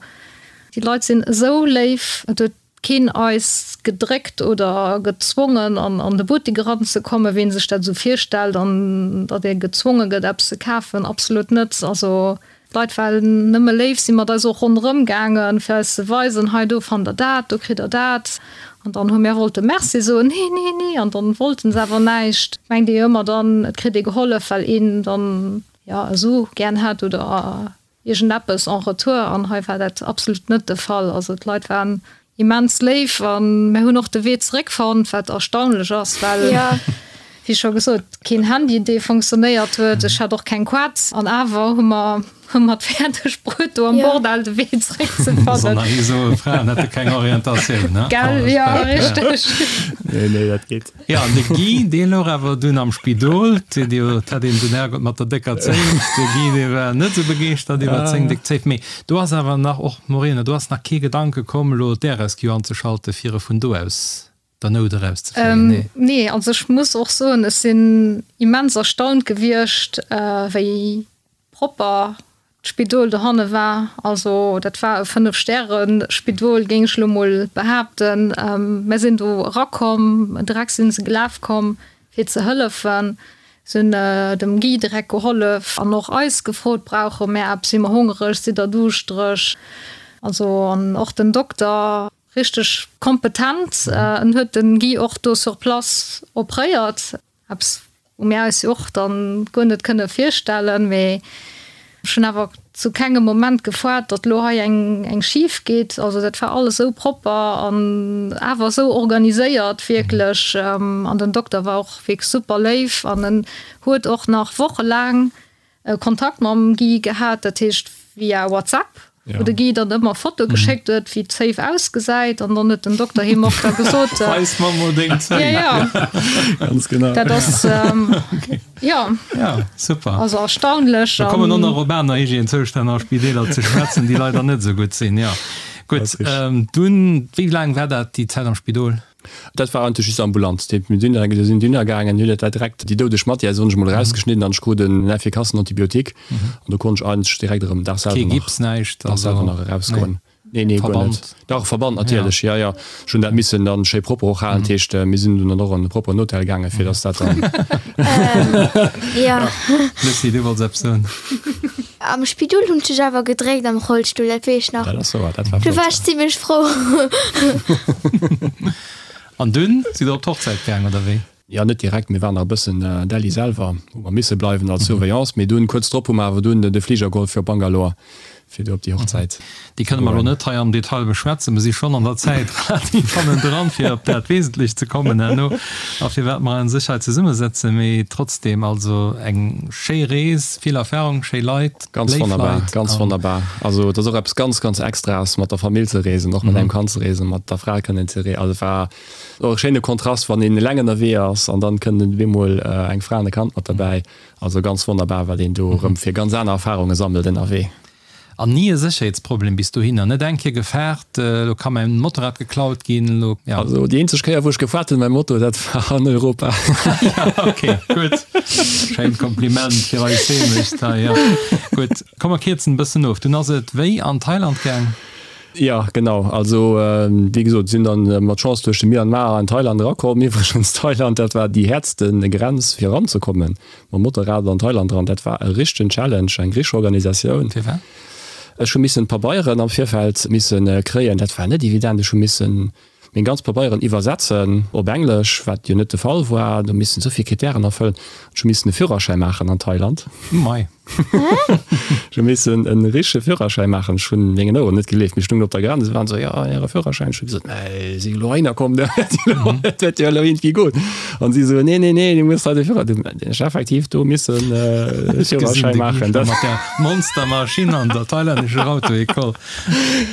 Speaker 4: déi Leit sinn esou léif, et huet keen eis gedréckt oder gezwongen an de Buttek eranzekommen, wéi een sech dat esou virstellt, an datt ee gezwonge gëtt eppes ze kafen, absolut net. Also d'Leit waren nëmme léif, si mat eis och ronderëm gaangen, fir eis ze weisen, hei do fannt der dat, do kritt der dat. An dann hu mir wollte Merci soen, nee, nee, nee, an dann wollten se awer näischt. Mengt ee jo ëmmer dann, et kritt ee gehollef, well een dann jo esou gären hätt oder iergendeppes en retour an hei war dat absolut net de Fall. Also d'Leit waren immens léif an mir hunn och de Wee zeréck fonnt, wat erstaunlech ass, well wéi scho gesot keen Handy dee funktionéiert huet, ech hat och keng Quad an awer hu mer hu mer et fäerdeg bruet do am Bordell de Wee zeréck ze fannen.
Speaker 2: Soll nach ee soen, Fraen hätte keng Orientatioun, ne?
Speaker 4: Gell, jo richteg.
Speaker 3: Nee, nee, dat geet.
Speaker 2: Jo, an de Guy, dee louch awer dunn am Spidol. Et hat een den Herrgott mat der décker Zéif. De Guy, dee war net esou begeeschtert iwwert seng déck Zéif. Mee do ass awer nach, och Morena, do ass nach kee Gedanke komm, elo d'Air-Rescue anzeschalten, fir e vun do aus der Nout erauszefléien?
Speaker 4: Nee. Nee, also ech muss och soen, ech sinn immens erstaunt gewiescht, wéi propper d'Spidol dohanne war. Also dat war e Fënnef-Stäre-Spidol, géing ech elo mol behaapten. Mär sinn do erakomm, direkt si se gelaf komm, fir ze hëllefen. Se hunn dem Guy direkt gehollef an och eis gefrot, Brauche mär eppes, si mer hongereg, sidd der duuschtereg? Also an och den Dokter, richteg kompetent, en huet den Guy och do sur place opréiert. Eppes wou mir eis jo och dann guer net kënne virstellen, mee ech hunn awer zu kengem Moment gefoart, datt elo hei eng eng schif geet. Also dat war alles esou propper an awer esou organiséiert wierklech. An den Dokter war och wierklech super léif an en huet och nach wochelaang Kontakt mam Guy gehat, dat heescht via WhatsApp, wou de Guy dann ëmmer Fotoe geschéckt huet, wéi d'Zéif ausgesäit an dann huet den Dokter him och da gesot,
Speaker 2: Weis mer mol deng Zéif.
Speaker 4: Ja, ja.
Speaker 3: Ganz genau.
Speaker 4: Dat ass, jo.
Speaker 2: Ja, super.
Speaker 4: Also erstaunlech.
Speaker 2: Da kommen och nach op aner Hygiènezoustänn a Spideeler ze schwätzen, déi leider net esou gutt sinn, jo. Gutt, dunn, wéi laang war dat, déi Zäit am Spidol?
Speaker 3: Dat war eigentlech just ambulant. Déi mir dunn do sinn dunner gaangen, hunn dat direkt déi doudeg Matière soen ech mol erausgeschnidden an ech krut en effikassen Antibiotique an do konnt ech eigentlech direkt erëm Dag selwer
Speaker 2: Kee
Speaker 3: nach
Speaker 2: Gips, näischt,
Speaker 3: Dag
Speaker 2: also
Speaker 3: selwer nach erausgoen. Nee, nee, guer net.
Speaker 2: Verband.
Speaker 3: Dach, Verband natierlech, jo, jo. Ech hunn dat missen dann schéi propper och halen, dat heescht mir sinn dunn dann och an e propperen Hotel gaangen, fir dass dat dann.
Speaker 5: Jo.
Speaker 2: Lucie, du wollts eppes soen?
Speaker 5: Am Spidol hunn ech dech awer gedréckt am Rollstull, dat weess ech nach.
Speaker 3: Dat ass wouer, dat war
Speaker 5: Do
Speaker 3: flott.
Speaker 5: war ech zimlech frou.
Speaker 2: An dunn sidd der op d'Hochzäit gaang, oder wéi?
Speaker 3: Jo, net direkt, mir waren nach e bëssen Delhi selwer, hu mer misse bleiwen als Surveillance, mee dunn kuerz drop hu mer awer dunn de Fliger geholl fir op Bangalore, fir do op déi Hochzäit
Speaker 2: Déi kënne mer elo net hei am Detail beschwätzen. Mer si schonn an der Zäit relativ hannendran, fir op dat Wesentlecht ze kommen herno a firwat mer a sech hei zesummesetzen. Mee trotzdem, also eng schéi Rees, vill Erfahrung, schéi Leit,
Speaker 3: Ganz
Speaker 2: léif
Speaker 3: wonnerbar,
Speaker 2: Leit.
Speaker 3: ganz wonnerbar. Also et ass och eppes ganz, ganz Extraes, mat der Famill ze reesen, och mat engem Kand ze reesen, mat der Fra kënnen ze reesen. Also et war och e schéine Kontrast, wann een eleng ënnerwee ass an dann kënnt op eemol eng Fra an e Kand mat derbäi. Also ganz wonnerbar, wat een do erëm fir ganz aner Erfarunge sammelt ënnerwee.
Speaker 2: An ni e Sécherheetsproblem bis dohinner? Net eng Kéier gefaart, elo ka mäin Motorrad geklaut ginn, elo,
Speaker 3: ja. Also déi eenzeg Kéier wou ech gefaart hunn mam Moto, dat war an Europa.
Speaker 2: Ja, ok, gutt. Schéint Kompliment fir eis Heemecht hei, jo. Gutt, komm mer kierzen e bëssen of. Dunn ass et wéi an Thailand gaang?
Speaker 3: Jo, genau. Also, wéi gesot, sinn dann mat Chance duerch de Myanmar an Thailand erakomm. Iwwregens, Thailand, dat war déi häertste Grenz fir eranzekommen, mam Motorrad an Thailand eran. Dat war e richtegen Challenge, eng richteg Organisatioun.
Speaker 2: Firwat?
Speaker 3: Ech hu missen d'Pabeieren am Virfeld misse kréien. Dat war net evident. Ech hu missen meng ganz Pabeieren iwwersetzen op Englesch, wat jo net de Fall war. Do missen esou vill Kritären erfëllen. Ech hu missen e Führerschäi maachen an Thailand.
Speaker 2: Mei.
Speaker 3: Ech hu missen e richtege Führerschäi maachen. Ech hunn mengen Oueren net geleeft. Mir stungen op der Grenz, se waren esou, jo, Äre Führerschäin. Ech hu gesot, mä ech si elo heihinner komm, dat wäert jo elo iergendwéi goen. An si esou, nee, nee, nee, du muss hei de Führer. Dunn hunn ech effektiv do missen e Führerschäi maachen.
Speaker 2: Mat der Monstermaschinn an der thailännescher Auto-École.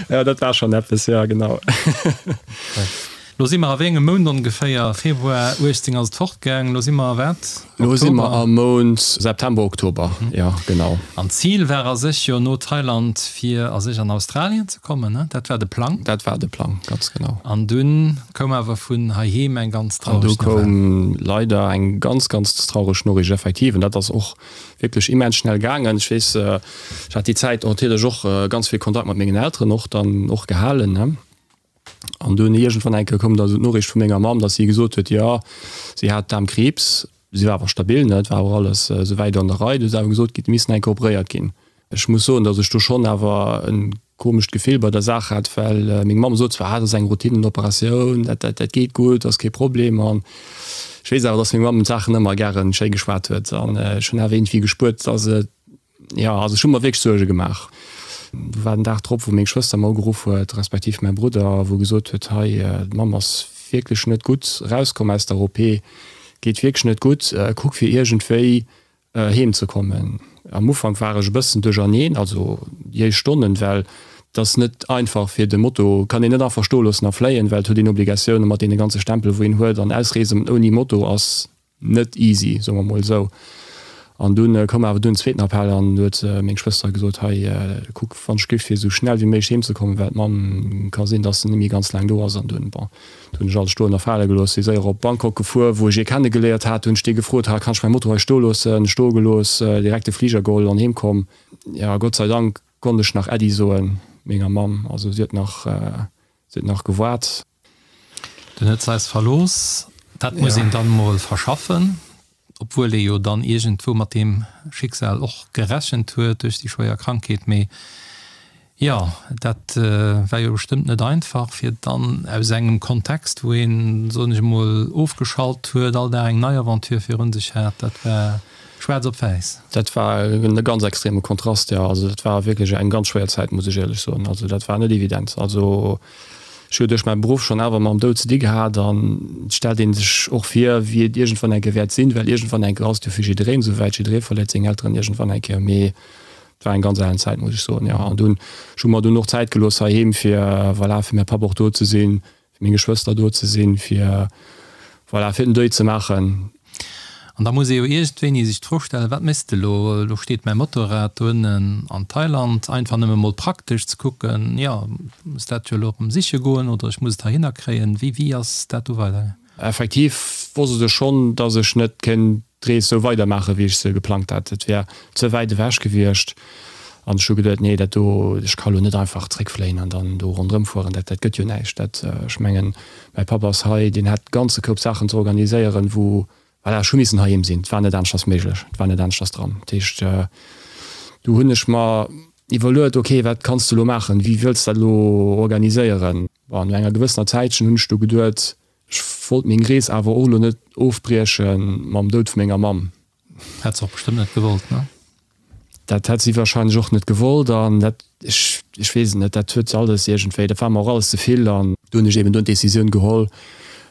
Speaker 3: Ja, dat war schon eppes, ja, genau.
Speaker 2: Lo si mer a wéi engem Mount ongeféier? Februar 18 ass et fortgaang, lo si mer a wat?
Speaker 3: Lo si mer am Mount September, Oktober, ja, genau.
Speaker 2: An d'Zil war a sech jo no Thailand fir a sech an Australien ze kommen, ne? Dat war de Plang?
Speaker 3: Dat war de Plang, ganz genau.
Speaker 2: An dunn koum awer vun heiheem eng ganz
Speaker 3: traureg Nouvelle. An du koum leider eng ganz, ganz traureg Noriicht, effektiv. An dat ass och wierklech immens schnell gaangen. Ech weess, ech hat déi Zäit natierlech och ganz vill Kontakt mat mengen Elteren och dann och gehalen, ne. An dunn iergendwann eng Kéier koum da sou d'Noriicht vu menger Mamm, datt si gesot huet, jo, si hat Daarmkriibs. Si war awer stabil, ne, et war awer alles souwäit an der Rei. Du ass awer gesot ginn, et misst nach eng Kéier operéiert ginn. Ech muss soen, datt ech do schonn awer e komescht Gefill bei der Saach hat, well meng Mamm sot zwar, ah, dat ass eng Routinen-Operatioun, dat, dat, dat geet gutt, ass kee Problem. An ech weess awer, datt meng Mamm d'Saachen ëmmer gäre schéi geschwat huet. An ech hunn awer iergendwéi gespuert, datt et, jo, also ech hu mer wierklech Suerge gemaach. Du war den Dag drop, wou meng Schwëster mer ugeruff huet, respektiv mäi Brudder, wou gesot huet, hei, d'Mamm ass wierklech net gutt erauskomm aus der OP, geet wierklech net gutt, kuck fir iergendwéi heem ze kommen. Am Ufank war ech e bëssen duercherneen, also déi éischt Stonnen, well et ass net einfach fir de Moto kann een net einfach stoe loossen a fléien, well et huet een Obligatioune mat deene ganze Stempele wou een huet an ausreesen ouni Moto ass net easy, soe mer mol esou. An dunn koum awer dunn en zweeten Appell an du huet meng Schwëster gesot, hei kuck wann ech géif fir esou schnell wéi méiglech heem ze kommen, well d'Mamm ka sinn, dass se net méi ganz laang do ass an dunn, bon, Do hunn ech alles stoen a fale gelooss, si séier op Bangkok gefuer, wou ech ee kenne geléiert hat. Do hunn ech dee gefrot, ha, kann ech mäi Moto hei stoe loossen? Stoe gelooss, direkt de Fliger geholl an heem komm. Jo, Gott sei Dank konnt ech nach Äddi soen menger Mamm. Also si huet nach, si huet nach gewaart.
Speaker 2: Dunn huet se eis verlooss. Dat muss een dann mol verschaffen. Obwuel ee jo dann iergendwou mat deem Schicksal och gerechent huet duerch déi schwéier Krankheet. Mee jo, dat war jo bestëmmt net einfach, fir dann aus engem Kontext, wou een, soen ech emol, ofgeschalt huet, all Dag eng nei Aventure virun sech hat. Dat war schwaarz op wäiss.
Speaker 3: Dat war e ganz extreme Kontrast, jo. Also dat war wierklech eng ganz schwéier Zäit, muss ech éierlech soen. Also dat war net evident. Also Ech hu jo duerch mäi Beruff schonn awer mam Doud ze di gehat an et stellt ee sech och vir, wéi et iergendwann eng Kéier wäert sinn, well iergendwann eng Kéier ass et jo fir jiddereen esou wäit, jidderee verléiert seng Elteren iergendwann eng Kéier. Mee et war eng ganz alen Zäit, muss ech soen, jo. An dunn, ech hu mer dunn och Zäit gelooss heiheem, fir, voilà, fir mäi Papp och do ze sinn, fir meng Geschwëster do ze sinn, fir, voilà, fir den Deuil ze maachen.
Speaker 2: An da muss ee jo iergendwéini sech d'Fro stellen, Wat méchs de elo? Elo steet mäi Motorrad do ënnen an Thailand. Einfach nëmme mol praktesch ze kucken, jo, muss dat jo elo erëm siche goen oder ech muss et heihinner kréien. Wéi, wéi ass dat do weidergaangen?
Speaker 3: Effektiv wosst ech schonn, dass ech net kéint d'Rees sou weidermaachen, wéi ech se geplangt hat. Et wär ze wäit ewech gewiescht. An ech hu geduet, nee, dat do, ech ka lo net einfach zréckfléien an dann do ronderëm fueren, dat, dat gëtt jo näischt. Dat, ech mengen, mäi Papp ass hei, deen hätt ganze Koup Saachen ze organiséieren, wou, voilà, ech hu missen heiheem sinn, et war net aneschters méiglech, et war net aneschters dran. Dat heescht, do hunn ech mer iwwerluet, ok, wat kanns de elo maachen, wéi wëlls de dat elo organiséieren? Bon, no enger gewëssener Zäitchen hunn ech du geduet, ech wollt meng Rees awer och elo net ofbrieche mam Doud vu menger Mamm.
Speaker 2: Hätt se och bestëmmt net gewollt, ne?
Speaker 3: Dat hätt si wahrscheinlech och net gewollt an dat, ech, ech weess et net, dat huet alles iergendwéi, dat war mer och alles ze vill an do hunn ech eben dunn d'Decisioun geholl,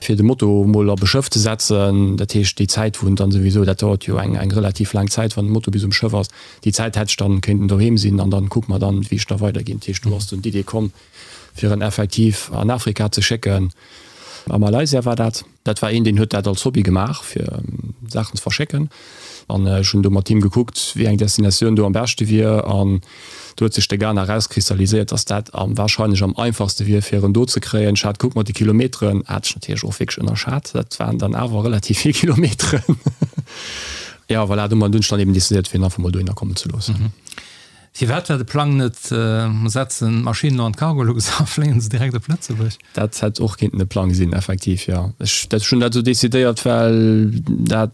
Speaker 3: fir de Moto emol op e Schëff ze setzen. Dat heescht, déi Zäit, wou en dann souwisou, dat dauert jo eng, eng relativ laang Zäit, wann de Moto bis um Schëff ass, déi Zäit hätt ech dann kéinten doheem sinn an dann kucke mer dann, wéi ech da weiderginn. Dat heescht, do ass dunn d'Idee komm, fir en effektiv an Afrika ze schécken, a Malaysia war dat. Dat war een, deen huet dat als Hobby gemaach, fir Saachen ze verschécken. An ech hunn do mat him gekuckt, wéi eng Destinatioun do am beschte wier. An do huet sech de Ghana erauskristalliséiert, dass dat am warscheinlech am einfachste wier, fir en do ze kréien. Ech hat gekuckt mat de Kilometeren, hat ech natierlech och wierklech ënnerschat. Dat waren dann awer relativ vill Kilometeren. Jo, voilà, domat hunn ech dann eben decidéiert, fir en einfach mol dohinner kommen ze loossen.
Speaker 2: Firwat war de Plang net, mer setzen d'Maschinn elo an d'Cargolux a fléien se direkt op Lëtzebuerg?
Speaker 3: Dat hätt och kéinten e Plang sinn, effektiv, jo. Ech hunn dat esou decidéiert, well dat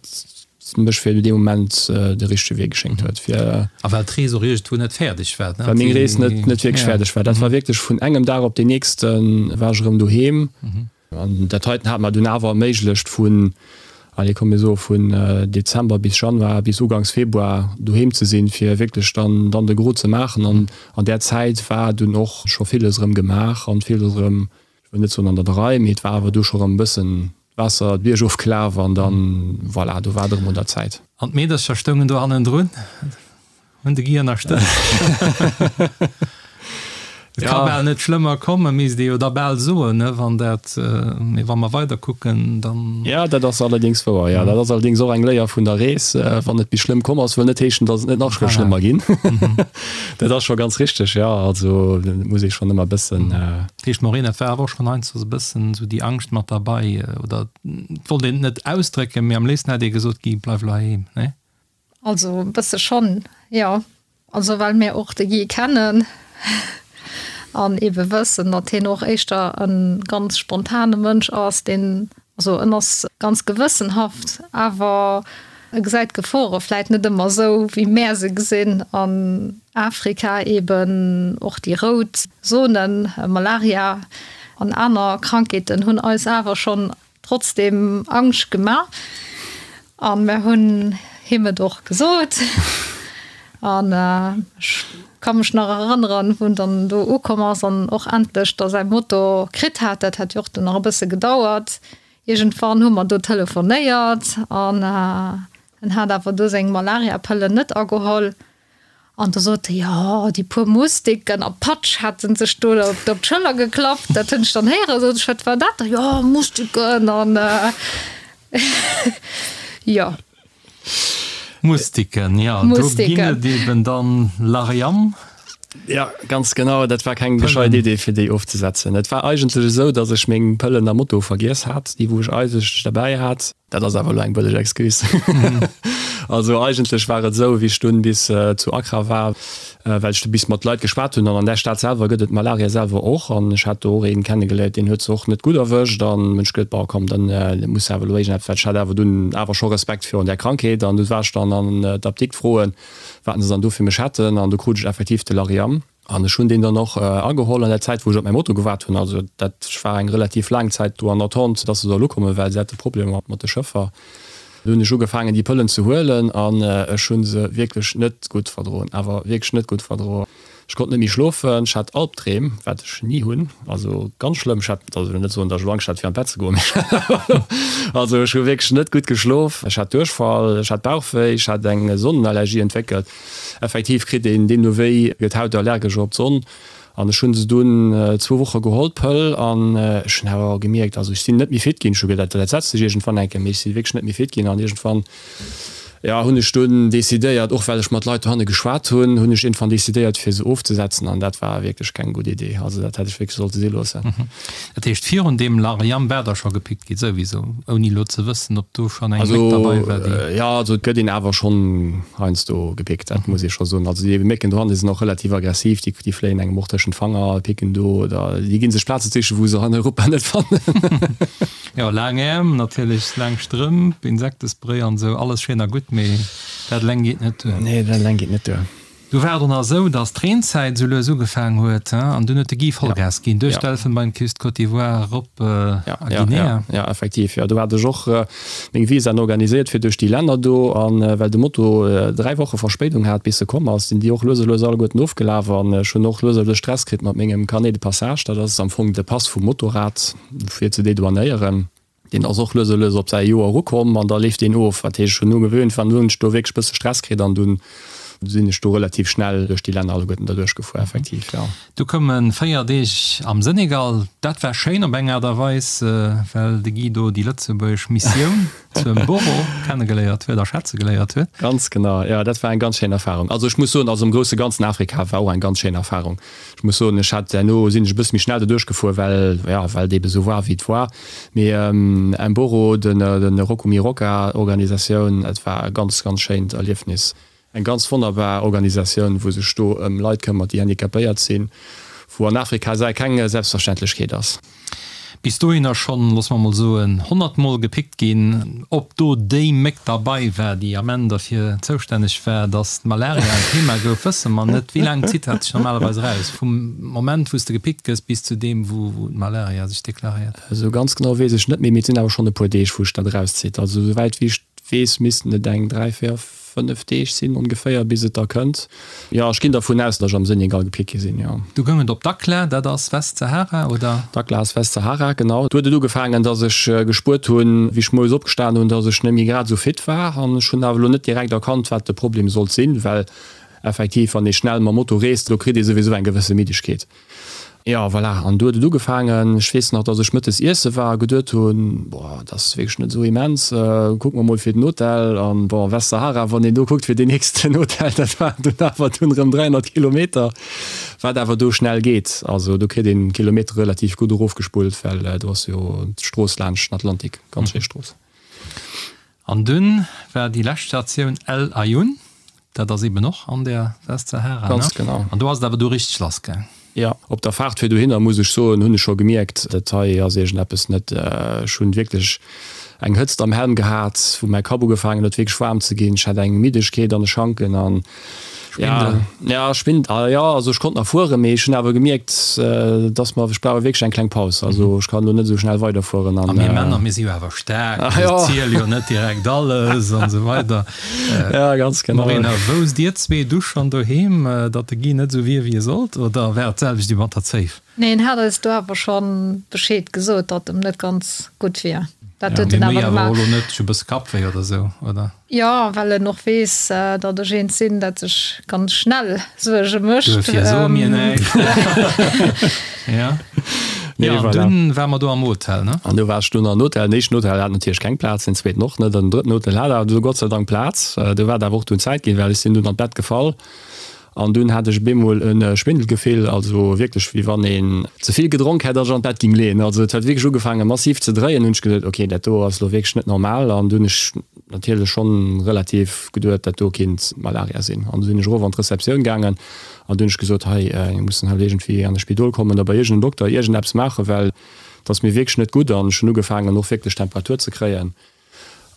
Speaker 3: mech fir dee Moment de richtege Wee geschéngt huet, fir.
Speaker 2: A well d'Rees och iergendwou net fäerdeg war,
Speaker 3: ne? Well meng Rees net net wierklech fäerdeg war. Dat war wierklech vun engem Dag op deen nächste war ech erëm doheem. An dat heiten hat mer dunn awer erméiglecht vun, allez komm mir soe vun Dezember bis Januar, bis uganks Februar doheem ze sinn, fir wierklech dann dann de Gros ze maachen. An an där Zäit war dunn och scho villes erëm gemaach an villes erëm, ech wëll net soen an der Rei, mee et war awer du scho erëm e bëssen d'Waasser d'Bierg ofgelaf an dann, voilà, do war et erëm un der Zäit.
Speaker 2: An d'Meedercher stoungen do hannendrun, hunn de Guy ënnerstëtzt. Et ka bal net schlëmmer kommen, misst ee jo da bal soen, ne, wann dat, mee wa mer weider kucken, dann.
Speaker 3: Jo, dat ass allerdéngs wouer, jo. Dat ass allerdéngs och eng Léier vun der Rees, Wann et bis schlëmm komm ass, wëll net heeschen, datt et net nach ka schlëmmer ginn. Dat ass scho ganz richteg, jo. Also et muss ee schonn ëmmer e bëssen.
Speaker 2: Dat heescht, Maureen, et war awer och schonn heiansdo esou e bëssen esou déi Angscht mat derbei, oder et wollt een et net ausdrécken, mee am léifsten hätt ee gesot, Guy, bleif elo heiheem, ne?
Speaker 4: Also e bësse schonn, jo. Also well mir och de Guy kennen an eebe wëssen, datt hien och éischter e ganz spontane Mënsch ass, deen, also en ass ganz gewëssenhaft, awer e gesäit d'Gefore vläit net ëmmer esou, wéi mär se gesinn. An Afrika eeben och déi rout Zonen, Malaria an aner Krankheeten hunn eis awer schonn Trotzdem Angscht gema an mer hunn him et och gesot an ech ka mech nach erënneren wou en dann do ukomm ass an och endlech da säi Moto kritt hat. Dat hat jo och dunn nach e bësse gedauert. Iergendwann hu mer do telefonéiert an en hat awer do seng Malariapëllen net ageholl. An da sot e, jo, déi puer Mustiken a Patsch hätte sech do op d'Schëller geklappt. Dat hunn ech dann héieren. Sot ech, wat war dat da? Jo, Mustiken an jo.
Speaker 2: Mustiken, jo, do ginn et eben dann Lariam.
Speaker 3: Jo, ganz genau. Dat war keng gescheit Idee, fir déi ofzesetzen. Et war eigentlech esou, datt ech meng Pëllen am Moto vergiess hat, déi wou ech eigentlech derbäi hat. Dat ass awer elo eng bëlleg Excuse. Also eigentlech war et esou, wéi ech dunn bis zu Accra war, well ech du bis mat Leit geschwat hunn, an an där Stad selwer gëtt et Malaria selwer och, an ech hat do och een kennegeléiert, deen huet se och net gutt erwëscht, an hunn ech geduet, bon komm, dann muss awer elo iergendeppes, well ech hat awer dunn awer scho Respekt virun där Krankheet, an du war ech dann an d'Apdikt froen, wat se dann do fir mech hätten, an du krut ech effektiv de Lariam. An ech hunn deen dann och ageholl an der Zäit, wou ech op mäi Moto gewaart hunn. Also dat war eng relativ laang Zäit do an Attente, dass se soll ukommen, well se hate Problemer mat de Schëffer. Du hunn ech ugefaangen, déi Pëllen ze huelen an ech hu se wierklech net gutt verdroen, awer wierklech net gutt verdroen. Ech konnt net méi schlofen, ech hat Albdreem, wat ech ni hunn, also ganz schlëmm. Ech hat, also ech wëll net soen, datt ech elo Angscht hat fir an d'Bett ze goen, mee also ech hu wierklech net gutt geschlof. Ech hat Duerchfall, ech hat Bauchwéi, ech hat eng Sonnenallergie entwéckelt. Effektiv kritt een deemno wéi, gëtt d'Haut allergesch op d'Sonn. An ech hunn se dunn zwou Woche geholl, d'Pëll, an ech hunn awer gemierkt, also ech sinn net méi fit ginn. Ech hu gedat, dat setzt sech iergendwann eng Kéier, mee ech si wierklech net méi fit ginn. An iergendwann, jo, hunn ech dunn decidéiert, och well ech mat Leit dohanne geschwat hunn, hunn ech iergendwann decidéiert, fir se ofzesetzen. An dat war wierklech keng gutt Idee. Also dat hätt ech wierklech sollte si loossen.
Speaker 2: Dat heescht, virun deem Lariam war der scho gepickt gi souwiso, ouni elo ze wëssen, ob do schonn eng Méck derbei war,
Speaker 3: déi. Jo, also et gëtt een awer schonn heiansdo gepickt, dat muss ee scho soen. Also déi Mécken dohanne sinn och relativ aggressiv, déi déi fléien engem och tëschent d'Fanger, picken do oder déi gi sech Plaze sichen, wou se an Europa net fannen.
Speaker 2: Jo, laang Äerm natierlech, laang Strëmp, Insektespray an esou, alles schéin a gutt, mee dat eleng geet net duer.
Speaker 3: Nee, dat eleng geet net duer.
Speaker 2: Du war et och nach esou, dass d'Reenzäit esou lues ugefaang huet, an dunn huet de Guy Vollgas ginn duerch d'Elfenbeinküst, Côte d'Ivoire erop a Guinea.
Speaker 3: Jo, effektiv, jo. Do hat ech och meng Visaen organiséiert fir duerch déi Länner do. A well de Moto 3 Woche Verspéidung hat, bis e komm ass, sinn déi och lues a lues alleguerten ofgelaf. An ech hunn och lues a lues Stress kritt mat mengem Carnet de passage. Dat ass am Fong de Pass vum Motorrad, fir ze dedouanéieren. Deen ass och lues a lues op säi Joer erukomm an da leeft deen of. Dat heescht, ech hunn ugewöhnt, wann hunn ech do wierklech e bësse Stress kritt an dunn sinn ech do relativ schnell duerch déi Länner alleguerten derduerch gefuer, effektiv, jo.
Speaker 2: Du koume 4 Deeg am Senegal. Dat war schéin op eng Aart a Weis, well de Guy do déi lëtzebuergesch Missioun zu Mboro kennegeléiert huet a schätze geléiert huet.
Speaker 3: Ganz genau, jo, dat war eng ganz schéin Erfarung. Also ech muss soen, also am grousse Ganzen Afrika war och eng ganz schéin Erfarung. Ech muss soen, ech hat herno sinn ech e bësse méi schnell doduerch gefuer, well, jo, well et eebe sou war wéi et war. Mee Mboro, den Rokumiroka Organisatioun, et war e ganz, ganz schéint Erliefnis. Eng ganz wonnerbar Organisatioun, wou sech do ëm Leit këmmert, déi handicapéiert sinn, wou an Afrika sei keng Selbstverständlechkeet ass.
Speaker 2: Bis dohinner schonn, loosse mer mol soen, honnertmol gepickt ginn. Ob do déi Méck derbei war, déi am Enn derfir zoustänneg war, datt d'Malaria en Thema gouf, wësse mer net. Wéi laang zitt dat sech normalerweis eraus, vum Moment, wou s de gepickt gëss, bis zu deem, wou d'Malaria sech deklaréiert?
Speaker 3: Esou ganz genau weess ech net méi, mee et sinn awer schonn e puer Deeg, wou sech dat erauszitt. Also esouwäit wéi ech weess, missten et eng 3, 4, 5 Deeg sinn ongeféier, bis et da kënnt. Jo, ech ginn dervun aus, datt ech am Senegal gepickt gi sinn, jo.
Speaker 2: Du goung et op Dakhla, dat ass Westsahara, oder?
Speaker 3: Dakhla ass Westsahara, genau. Do huet et ugefaangen, datt ech gespuert hunn, wéi ech moies opgestan hunn, datt ech net méi grad esou fit war. An ech hunn awer elo net direkt erkannt, wat de Problem sollt sinn, well effektiv, wann ee schnell mam Moto reest, do kritt ee souwisou eng gewësse Middegkeet. Jo, voilà, an du huet et ugefaangen. Ech weess nach, dass ech mëttes iesse war a geduet hunn, Boah, dat ass wierklech net esou immens, kucke mer mol fir den Hotel. An bon, Westsahara, wann een do kuckt fir deen nächsten Hotel, dat waren dunn awer dunn erëm 300 Kilometer, wat awer do schnell geet. Also do kritt een d'Kilometere relativ gutt erofgespullt, well do ass jo d'Strooss laanscht den Atlantik, ganz schéi Strooss.
Speaker 2: An dunn war déi lescht Statioun El Aaiún, dat ass eben och an der Westsahara, ne?
Speaker 3: Ganz genau.
Speaker 2: An do ass et awer du richteg lass gaang.
Speaker 3: Jo, op der Faart fir dohinner, muss ech soen, hunn ech scho gemierkt, dat hei ass iergendeppes net. Ech hunn wierklech eng Hëtzt am Helm gehat, wou mäi Kapp ugefaangen huet wierklech waarm ze ginn. Ech hat eng Middegkeet an de Schanken an
Speaker 2: Schwindel?
Speaker 3: Ja, Schwindel, ah jo, also ech konnt nach fueren, mee ech hunn awer gemierkt, dass mer, ech brauch wierklech eng kleng Paus, also ech kann elo net esou schnell weiderfueren
Speaker 2: an. A mir Männer, mir si jo awer staark, mir ziele jo net direkt alles an esou weider.
Speaker 3: Ja, ganz genau.
Speaker 2: Marina, wousst dir zwee du schonn doheem, datt de Guy net esou wier, wéi e sollt, oder war et d'selwecht wéi mat der Zéif?
Speaker 4: Nee, en hat eis do awer schonn Bescheed gesot, datt em net ganz gutt wier.
Speaker 2: Dat huet en awer gemaach. Mee méi awer och elo net, ech hu e bësse Kappwéi oder esou, oder?
Speaker 4: Jo, well en och weess, datt ech eent sinn, dat sech ganz schnell Suerge mécht.
Speaker 2: Duerfir soe mir näischt. Ja.
Speaker 3: Nee,
Speaker 2: an
Speaker 3: voilà.
Speaker 2: Dunn ware mer do am Hotel, ne?
Speaker 3: An du war ech dunn am Hotel. Den éischten Hotel hat natierlech keng Plaz, den zweeten och net an den drëtten Hotel hat awer du Gott sei Dank Plaz. Do war et awer och dunn Zäit ginn, well ech sinn dunn an d'Bett gefall. An dunn hat ech beemol e Schwindelgefill, also wierklech wéi wann een ze vill gedronk hätt a sech an d'Bett ging leeën. Also et huet wierklech ugefaange massiv ze dréien. Hunn ech geduet, ok, dat do ass elo wierklech net normal. An dunn hunn ech natierlech schonn relativ geduet, dat do kinnt Malaria sinn. An du sinn ech erof an d'Receptioun gaangen an du hunn ech gesot, hei, mir mussen halt iergendwéi an e Spidol kommen oder bei iergendem Dokter iergendeppes maachen, well et ass mir wierklech net gutt. An ech hunn ugefaangen och wierklech Temperatur ze kréien.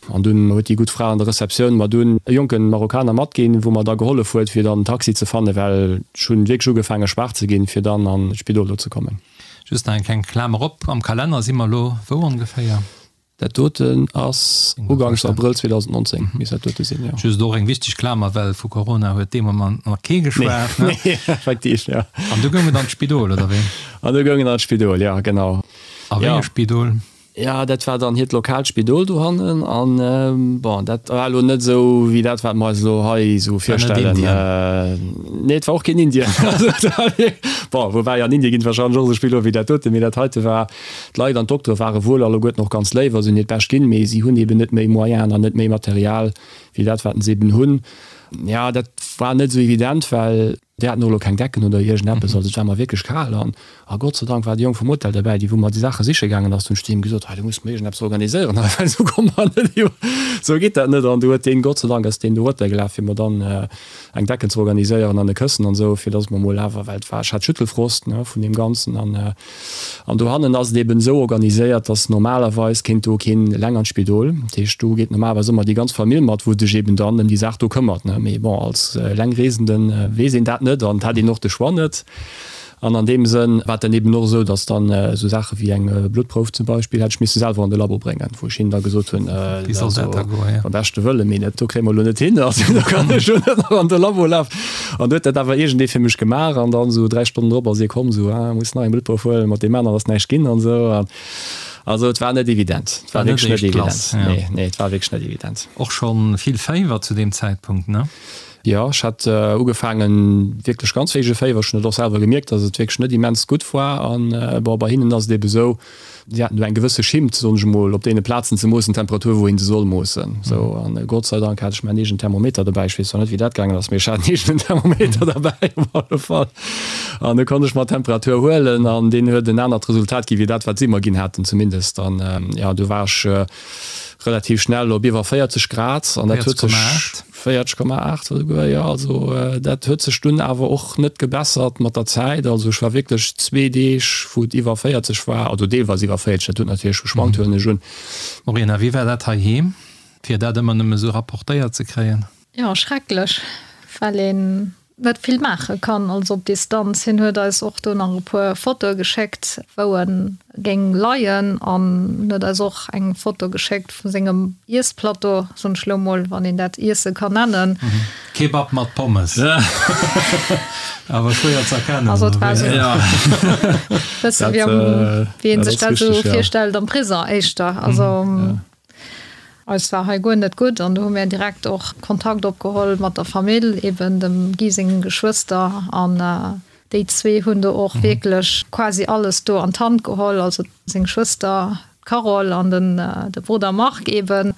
Speaker 3: An dunn huet déi gutt Fra an der Receptioun mer dunn e jonke Marokkaner matginn, wou mer da gehollef huet, fir dann en Taxi ze fannen, well ech hunn wierklech ugefaange schwaach ze ginn, fir dann an d'Spidol do ze kommen.
Speaker 2: Just nach eng kleng Klamer op, am Kalenner si mer elo wou ongeféier?
Speaker 3: Dat doten ass uganks Abrëll 2019, misst dat dote sinn, jo.
Speaker 2: Just och eng wichteg Klamer, well vu Corona huet dee Moment nach kee geschwat,
Speaker 3: ne? Nee, effektiv, jo.
Speaker 2: An du goung et an d'Spidol, oder wéi?
Speaker 3: An du goung et an d'Spidol, jo, genau.
Speaker 2: A wéi e Spidol?
Speaker 3: Jo, dat war dann hiert lokaalt Spidol dohannen an bon, dat war elo net esou wéi dat, wat mer eis elo hei esou virstellen. Nee, et war och keen Indien. Bon, woubäi an Indien ginn et warscheinlech och esou Spidoler wéi dat doten, mee dat heite war, d'Leit an d'Doktere ware wuel alleguerten och ganz léif a se hunn hiert Bescht ginn, mee si hunn eben net méi Moyenen an net méi Material wéi dat, wat se eben hunn. Jo, dat war net esou evident, well. Déi haten och elo keng Decken oder iergendeppes, also et war mer wierklech kal an a Gott sei Dank war de Jong vum Hotel derbäi, dee wou mer déi Saache siche gaangen ass. Dunn hu ech zu him gesot, hei du muss mer iergendeppes organiséieren hei, well esou komme mer net iwwer, esou geet dat net. An du huet deen, Gott sei Dank ass deen do erotergelaf fir mer dann eng Decken ze organiséieren an e Këssen an esou, fir dass mer mol awer, well et war, ech hat Schüttelfrost, ne, vun deem Ganzen an An dohannen ass et eben esou organiséiert, dass normalerweis kéint do keen eleng an d'Spidol. Dat heescht, do geet normalerweis ëmmer déi ganz Famill mat, wou sech eben dann ëm déi Saach do këmmert, ne. Mee bon, als Elengreesende weess een dat net an et hat een och de Choix net. An an deem Sënn war et dann eben och esou, dass dann esou Saache wéi eng Bluttprouf zum Beispill hätt ech misse selwer an de Labo bréngen, wou ech hinnen da gesot hunn,
Speaker 2: Wéi soll dat da goen,
Speaker 3: jo? Beim beschte Wëlle, mee dat do kréie mer elo net hin, also do kann ech elo net nach an de Labo lafen. An du huet dat awer iergendee fir mech gemaach an dann esou 3 Stonnen drop ass hie komm, esou, ah, muss nach eng Bluttprouf huelen, mat deem aneren ass näischt ginn an esou. An also et war net evident, et war wierklech net evident. Nee, nee, et war wierklech net evident.
Speaker 2: Och schonn vill Féiwer zu deem Zäitpunkt, ne?
Speaker 3: Jo, ech hat ugefaangen wierklech ganz héije Féiwer. Ech hunn et och selwer gemierkt, datt et wierklech net immens gutt war. An bon, bei hinnen ass et ebe sou, Si haten do eng gewësse Schimmt, soen ech emol, op deene Plazen ze moossen, d'Temperatur, wou een se soll moossen. Sou, an Gott sei Dank hat ech mäin eegenen Thermometer dobäi. Ech weess zwar net, wéi dat gaangen ass, mee ech hat en eegenen Thermometer derbäi op alle Fall. An du konnt ech mer d'Temperatur huelen an deen huet en anert Resultat gi wéi dat, wat si mer ginn haten. Zumindest. zumindest. An jo, du war ech relativ schnell op iwwer 40 Grad an dat huet sech 40,8 esouguer, jo. Also dat huet sech dunn awer och net gebessert mat der Zäit. Also ech war wierklech zwee Deeg, wou et iwwer 40 war, also deelweis iwwer 40, dat huet natierlech geschwankt, huelen ech un.
Speaker 2: Maureen, a wéi war dat heiheem, fir dat ëmmer nëmme sou rapportéiert ze kréien?
Speaker 4: Jo, schrecklech, well een net vill maache kann, also op Distanz. Hien huet eis och do nach e puer Fotoe geschéckt, wou e géing leien an huet eis och eng Foto geschéckt vu sengem Iessplateau, soen ech lo mol, wann een dat Iesse kann nennen.
Speaker 2: Kebab mat Pommes. Awer schwéier ze erkennen.
Speaker 4: Also et war esou e bësse wéi am, wéi ee sech dat esou virstellt am Prison éischter. Also. Eis war hei guer net gutt an do hu mir direkt och Kontakt opgeholl mat der Famill, eben dem Guy sengen Geschwëster an déi zwee hunn do och wierklech quasi alles do an d'Hand geholl, also seng Schwëster d'Carole an den de Brudder Marc eben,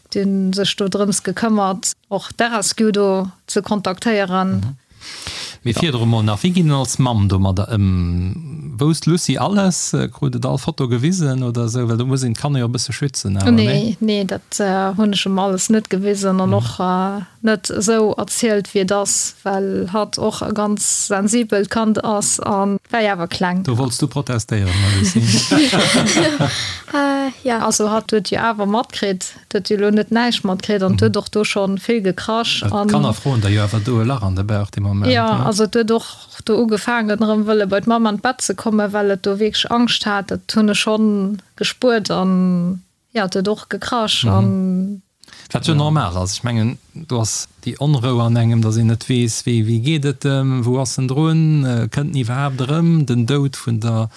Speaker 4: déi hunn sech do drëms gekëmmert och d'RSQ do ze kontaktéieren.
Speaker 2: Mee virdru mol nach, wéi ginn en als Mamm domadder ëm? Wousst d'Lucie alles? Krut et all Foto gewisen oder esou? Well do muss een d'Kanner jo e bësse schützen
Speaker 4: awer, nee? Nee, nee, dat hunn ech em alles net gewisen an och net esou erzielt wéi et ass, well hatt och e ganz sensibelt Kand ass a war jo awer kleng.
Speaker 2: Do wollts du protestéieren, Lucie?
Speaker 4: Jo. Also hatt huet jo awer matkritt, Et huet jo elo net näischt matkritt an et huet och do scho vill gekrasch.
Speaker 2: Well d'Kanner froen der jo awer do e Lach an de Bauch dee Moment.
Speaker 4: Jo, also et huet och do ugefaangen erëm wëlle bei d'Mamm an d'Bett ze kommen, well et do wierklech Angscht hat. Dat hunn ech schonn gespuert an jo, et huet och gekrasch an.
Speaker 2: Wat jo normal ass. Ech mengen, do ass déi Onrou an engem, datt een net weess, wéi wéi geet et em, wou ass en drun, kënnt en iwwerhaapt erëm, den Doud vun der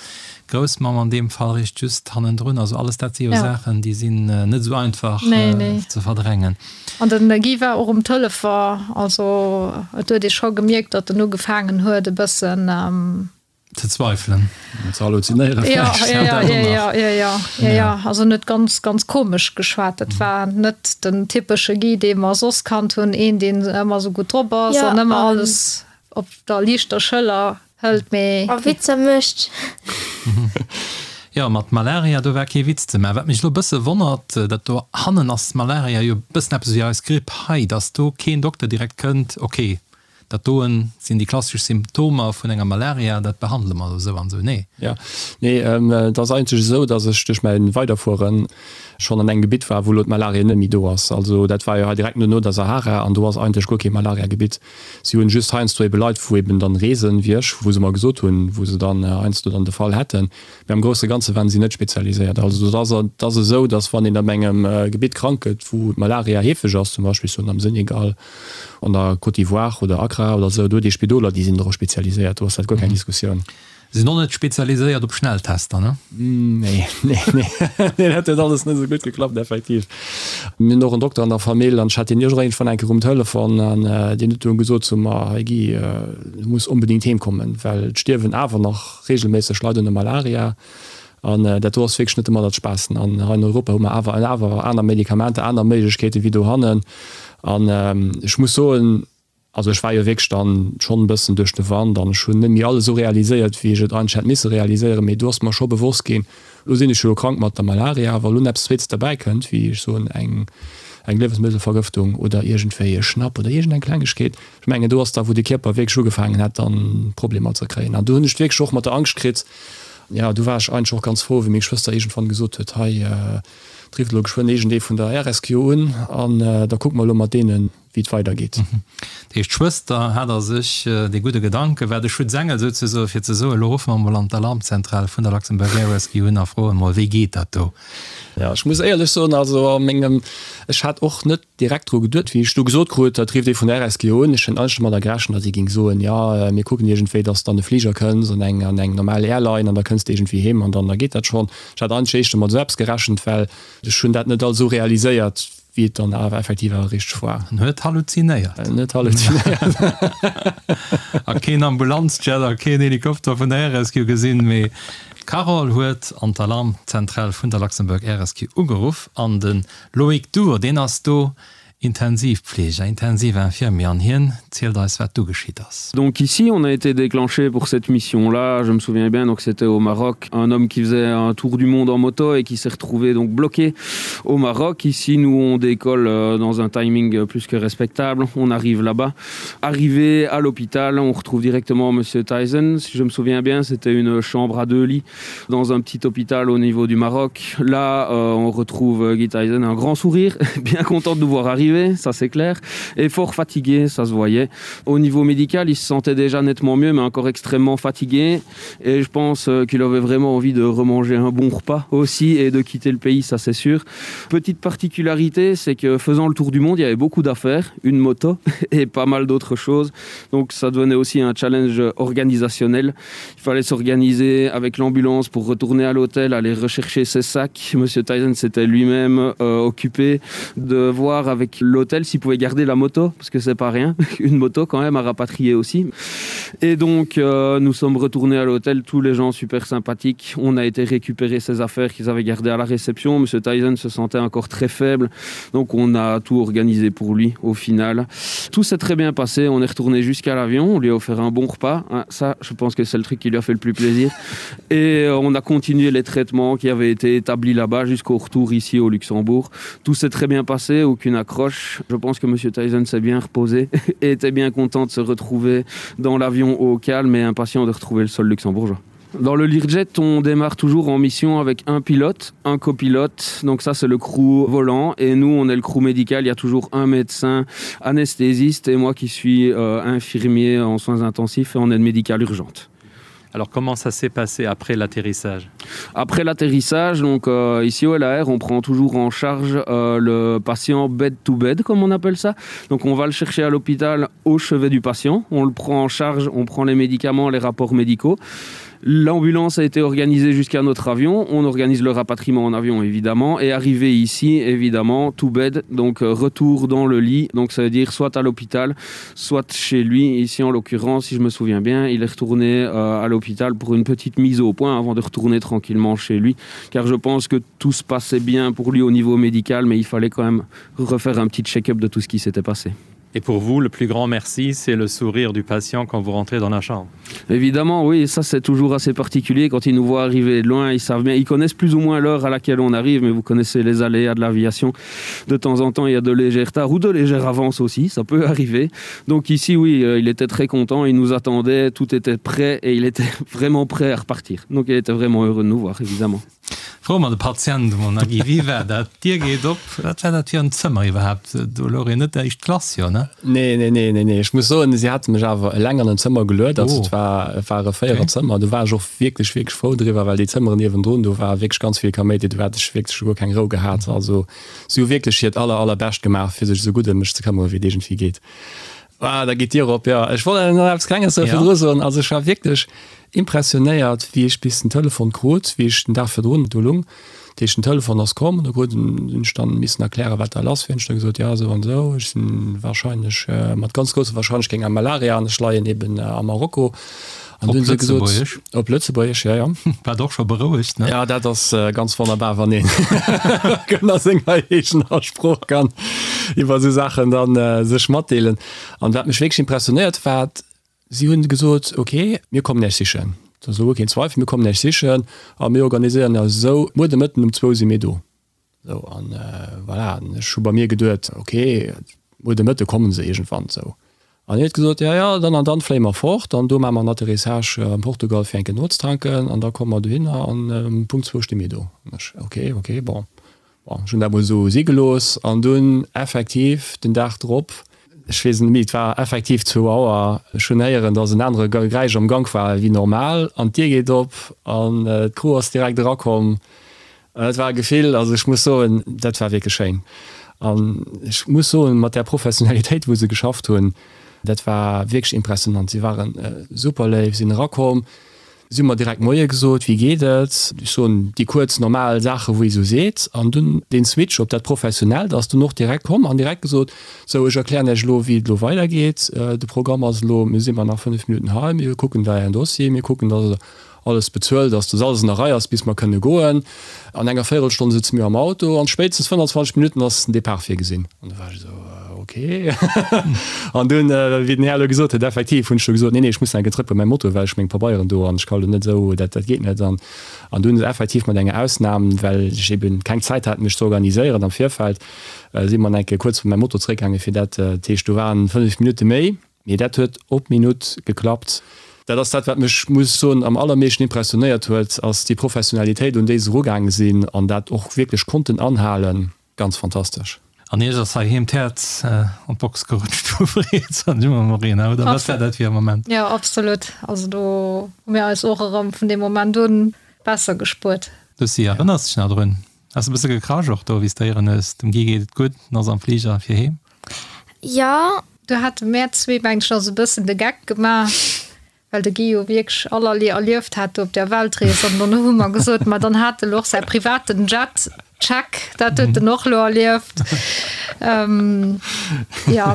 Speaker 2: Groussmamm an deem Fall richt just hannendrun. Also alles dat si jo Saachen, déi sinn net esou einfach ze verdrängen.
Speaker 4: An den Guy war och um Telefon, also et huet ee scho gemierkt, datt en ugefaangen huet e bëssen
Speaker 2: Ze zweifelen.
Speaker 3: Ze halluzinéieren
Speaker 4: vläicht. Ja, ja, ja, ja, ja, ja, ja, ja. Also en huet ganz, ganz komesch geschwat. Dat war net den typesche Guy, dee mer soss kannt hunn, een, deen ëmmer esou gutt drop ass an ëmmer alles op der liichter Schëller hëlt, mee.
Speaker 5: A Witzer mécht.
Speaker 2: Jo, mat Malaria, do war kee Witz ze maachen. Wat mech elo e bësse wonnert, dat do hannen ass Malaria jo e bëssen eppes wéi eis Gripp hei, dass do keen Dokter direkt kënnt, ok, Dat doen sinn déi klassesch Symptomer vun enger Malaria, dat behandele mer esou an esou. Nee.
Speaker 3: Jo, nee, et ass eigentlech esou, datt ech duerch mäi Weiderfuere schonn an engem Gebitt war, wou elo d'Malaria net méi do ass. Also dat war jo hei direkt no no der Sahara an do ass eigentlech guer kee Malariagebitt. Si hunn just heiansdo ebe Leit, wou eben dann reesen, wéi ech, wou se mer gesot hunn, wou se dann heiansdo dann de Fall hätten. Mee am grousse Ganze waren si net spezialiséiert. Also et ass, et ass esou, datt wann een op engem Gebitt krank gëtt, wou d'Malaria heefeg ass, zum Beispill soen am Senegal, An der Côte d'Ivoire oder Accra oder esou, do huet ee Spidoler, déi sinn dorop spezialiséiert, do ass dat guer keng Diskussioun.
Speaker 2: Sinn och net spezialiséiert op Schnelltester, ne?
Speaker 3: Nee, nee, nee, nee, dat huet alles net esou gutt geklappt, effektiv. Mir hunn och en Dokter an der Famill an ech hat deen iergendwann eng Kéier um Telefon an deen huet dunn gesot zu mer, Hey Guy, du muss onbedéngt heem kommen, well et stierwen awer nach reegelméisseg Leit un der Malaria. An dat do ass wierklech net domadder ze spaassen. An hei an Europa hu mer awer awer aner Medikamenter, aner Méiglechkeete wéi dohannen. An ech muss soen, also ech war jo wierklech dann schonn e bëssen duerch de Wand an ech hunn net méi alles esou realiséiert, wéi ech et eigentlech hätt misse realiséieren. Mee do ass mer scho bewosst ginn, elo sinn ech jo krank mat der Malaria, wa lo eppes Zweetes derbäi kënnt, wéi ech soen eng eng Liewensmëttelvergëftung oder iergendwéi e Schnapp oder iergendeng Klengegkeet, ech mengen do ass da wou de Kierper wierklech ugefaangen hat dann Problemer ze kréien. An do hunn ech et wierklech och mat der Angscht kritt, Jo, du war ech eigentlech och ganz frou, wéi meng Schwëster iergendwann gesot huet, Hei, et rifft elo geschwënn iergendee vun der RSQ un an da kucke mer elo mat deenen, wéi et weidergeet.
Speaker 2: Dat heescht, d'Schwëster hat a sech dee gudde Gedanke, war de Schutzengel souzesoen, fir ze soen, Elo ruffe mer emol an d'Alarmzentral vun der Luxembourg Air Rescue un a froen emol, wéi geet dat do?
Speaker 3: Jo, ech muss éierlech soen, also a mengem, ech hat och net direkt dru geduet, wéi ech du gesot krut, dat rifft ee vun der RSG un. Ech hunn eigentlech domadder gerechent, datt si géing soen, jo, mir kucken iergendwéi, datt s de an de Fliger kënns, an eng, an eng normal Airline, an da kënns de iergendwéi heem an dann da geet dat schonn. Ech hat eigentlech éischter mat esou eppes gerechent, well ech hunn dat net alt esou realiséiert, wéi et dann awer effektiv awer richteg war.
Speaker 2: En huet halluzinéiert.
Speaker 3: En huet halluzinéiert.
Speaker 2: A keen Ambulanzjet a keen Helikopter vun der RSG gesinn, mee d'Carole huet an d'Alarmzentral vun der Luxembourg Air Rescue ugeruff an de Loïc Duhr, deen ass do. Intensivpfleger, Intensivinfirmier an hien zielt eis wat du geschitt ass.
Speaker 6: Donc ici on a été déclenché pour cette mission là, je me souviens bien donc c'était au Maroc, un homme qui faisait un tour du monde en moto et qui s'est retrouvé donc bloqué au Maroc. Ici nous on décolle euh, dans un timing plus que respectable, on arrive là-bas. Arrivé à l'hôpital, on retrouve directement monsieur Tyson. Si je me souviens bien, c'était une chambre à deux lits dans un petit hôpital au niveau du Maroc. Là euh, on retrouve euh, Guy Tyson un grand sourire, bien content de nous voir arriver, ça c'est clair, et fort fatigué, ça se voyait. Au niveau médical, il se sentait déjà nettement mieux, mais encore extrêmement fatigué. Et je pense euh, qu'il avait vraiment envie de remanger un bon repas aussi et de quitter le pays, ça c'est sûr. Petite particularité, c'est que faisant le tour du monde, il y avait beaucoup d'affaires, une moto et pas mal d'autres choses. Donc ça devenait aussi un challenge organisationnel. Il fallait s'organiser avec l'ambulance pour retourner à l'hôtel, aller rechercher ses sacs. Monsieur Tyson s'était lui-même euh, occupé de voir avec l'hôtel s'il pouvait garder la moto, parce que c'est pas rien, une moto quand même à rapatrier aussi. Et donc euh, nous sommes retournés à l'hôtel, tous les gens super sympathiques. On a été récupérer ses affaires qu'ils avaient gardées à la réception. Monsieur Tyson se sentait encore très faible, donc on a tout organisé pour lui au final. Tout s'est très bien passé, on est retourné jusqu'à l'avion, on lui a offert un bon repas. Hein, ça, je pense que c'est le truc qui lui a fait le plus plaisir. Et euh, on a continué les traitements qui avaient été établis là-bas jusqu'au retour ici au Luxembourg. Tout s'est très bien passé, aucune accroche. Je pense que monsieur Tyson s'est bien reposé et était bien content de se retrouver dans l'avion au calme et impatient de retrouver le sol luxembourgeois. Dans le Learjet, on démarre toujours en mission avec un pilote, un copilote. Donc ça, c'est le crew volant. Et nous, on est le crew médical. Il y a toujours un médecin anesthésiste et moi qui suis euh, infirmier en soins intensifs et en aide médicale urgente.
Speaker 2: Alors comment ça s'est passé après l'atterrissage
Speaker 6: Après l'atterrissage, donc euh, ici au LAR, on prend toujours en charge euh, le patient bed to bed comme on appelle ça. Donc on va le chercher à l'hôpital au chevet du patient, on le prend en charge, on prend les médicaments, les rapports médicaux. L'ambulance a été organisée jusqu'à notre avion, on organise le rapatriement en avion évidemment et arrivé ici évidemment tout bed donc euh, retour dans le lit donc ça veut dire soit à l'hôpital soit chez lui ici en l'occurrence si je me souviens bien il est retourné euh, à l'hôpital pour une petite mise au point avant de retourner tranquillement chez lui car je pense que tout se passait bien pour lui au niveau médical mais il fallait quand même refaire un petit check-up de tout ce qui s'était passé.
Speaker 2: Et pour vous, le plus grand merci, c'est le sourire du patient quand vous rentrez dans la chambre.
Speaker 6: Évidemment, oui, ça c'est toujours assez particulier quand ils nous voient arriver de loin, ils savent bien, ils connaissent plus ou moins l'heure à laquelle on arrive, mais vous connaissez les aléas de l'aviation. De temps en temps, il y a de légers retards ou de légères avances aussi, ça peut arriver. Donc ici, oui, euh, il était très content, il nous attendait, tout était prêt et il était vraiment prêt à repartir. Donc il était vraiment heureux de nous voir, évidemment.
Speaker 2: Froe mer de Patient emol nach, Guy, wéi war dat? D'Dier geet op, wat war dat fir en Zëmmer iwwerhaapt? Do louch een net éischt Klass, jo, ne?
Speaker 3: Nee, nee, nee, nee, nee. Ech muss soen, si hate mech awer eleng an en Zëmmer geluet. Also et war, et war e Véiererzëmmer. Do war ech och wierklech, wierklech frou driwwer, well déi Zëmmeren niewendrun, do war wierklech ganz vill Kaméidi, do hätt ech wierklech guer keng Rou gehat. Also si hu wierklech hiert aller, allerbescht gemaach, fir sech esou gutt ëm mech ze këmmere wéi et iergendwéi geet. Ah, da geet d'Dier op, jo. Ech wollt nach eppes Klenges virdru soen. Also ech war wierklech Impressionéiert, wéi ech bis den Telefon krut, wéi ech den Dag virdrun do lung. Dat heescht, den Telefon ass komm, do krut en, hunn ech dann missen erklären, wat da lass wier. Hunn ech da gesot, jo, esou an esou, ech sinn wahrscheinlech, mat ganz grousser Wahrscheinlechkeet eng Malaria an ech leien eben a Marokko.
Speaker 2: An du hunn se gesot. Op Lëtzebuergesch?
Speaker 3: Op Lëtzebuergesch, jo, jo.
Speaker 2: Wat och scho berouegt,
Speaker 3: ne? Jo, dat ass ganz wonnerbar, wann een a senger eegener Sprooch kann iwwer esou Saachen dann sech matdeelen. An wat mech wierklech impressionéiert war, Si hunn gesot, Ok, mir kommen Iech sichen. Dat ass elo guer keen Zweifel, mir kommen Iech sichen a mir organiséieren eis esou, muer de Mëtten um zwou si mir do. Esou, an voilà, an ech hu bei mir geduet, Ok, muer de Mëtte komme se iergendwann. Esou. An hien huet gesot, Jo, jo, dann an dann fléie mer fort an do maache mer en Atterrissage am Portugal fir eng Kéier nozetanken an da komme mer dohinner an um Punkt zwou sti mir do. An ech, Ok, ok, bon. Bon, ech hunn dat mol esou si gelooss an dunn effektiv den Dag drop, ech weess net méi, et war effektiv zwou Auer, ech hunn héieren, dass en anere Geräisch am Gank war wéi normal an d'Dier geet op an d'Crew ass direkt erakomm. Dat war e Gefill, also ech muss soen, dat war wierklech schéin an ech muss soen, mat där Professionalitéit wou se geschafft hunn, dat war wierklech impressionant. Si ware super léif, sinn erakomm. Si hu mer direkt Moie gesot, wéi geet et? Ech soen déi kuerz normal Saache wou ee sou seet. An dunn deen Switch op dat Professionellt ass dunn och direkt komm an direkt gesot, sou ech erklären Iech elo wéi et elo weidergeet. De Programm ass elo, mir si mar nach 5 Minutten hei, mir kucken da Ären Dossier, mir kucken dass. alles bezuelt ass, dass alles an der Rei ass, bis mer kënne goen. An enger Véierelstonn sëtze mir am Auto an spéitstens 25 Minutten ass den Depart virgesinn. An du war ech esou, ok. An dunn, wéi den Här elo gesot huet, effektiv hunn ech du gesot, nee, nee, ech muss nach eng Kéier zrëck bei mäi Moto, well ech meng Pabeieren do an ech ka elo net esou, dat, dat geet net. An, an dunn effektiv mat enger Ausnam, well ech eben keng Zäit hat, mech ze organiséieren am Virfeld, si mer nach eng Kéier kuerz bei mäi Moto zréckgaangen, fir dat, dat heescht, do waren 5 Minutte méi. Mee dat huet op d'Minutt geklappt. Dat ass dat, wat mech, muss ech soen, am allermeeschten impressionéiert huet, ass déi Professionalitéit, un déi se erugaange sinn an dat och wierklech konnten anhalen. Ganz fantastesch.
Speaker 2: An Iech ass heiheem d'Häerz an d'Box gerutscht vu Freed, soen ech emol, Morena, oder wat war dat fir e Moment?
Speaker 4: Jo, absolut. Also do hu mir eis och erëm vun deem Moment un besser gespuert.
Speaker 2: Lucie, erënners dech nach drun? Has e bësse gekrasch och do, wéi s de héieren hues, dem Guy geet et gutt, en ass am Fliger fir heem?
Speaker 5: Jo.
Speaker 4: Do hate mär zwee, mengen ech, nach esou e bëssen de Geck gemaach, well de Guy jo wierklech allerlee erlieft hat do op där Weltrees. An dann hu mer gesot, ma dann hat e lo och säi privaten Jet, check, dat huet en och lo erlieft. Jo.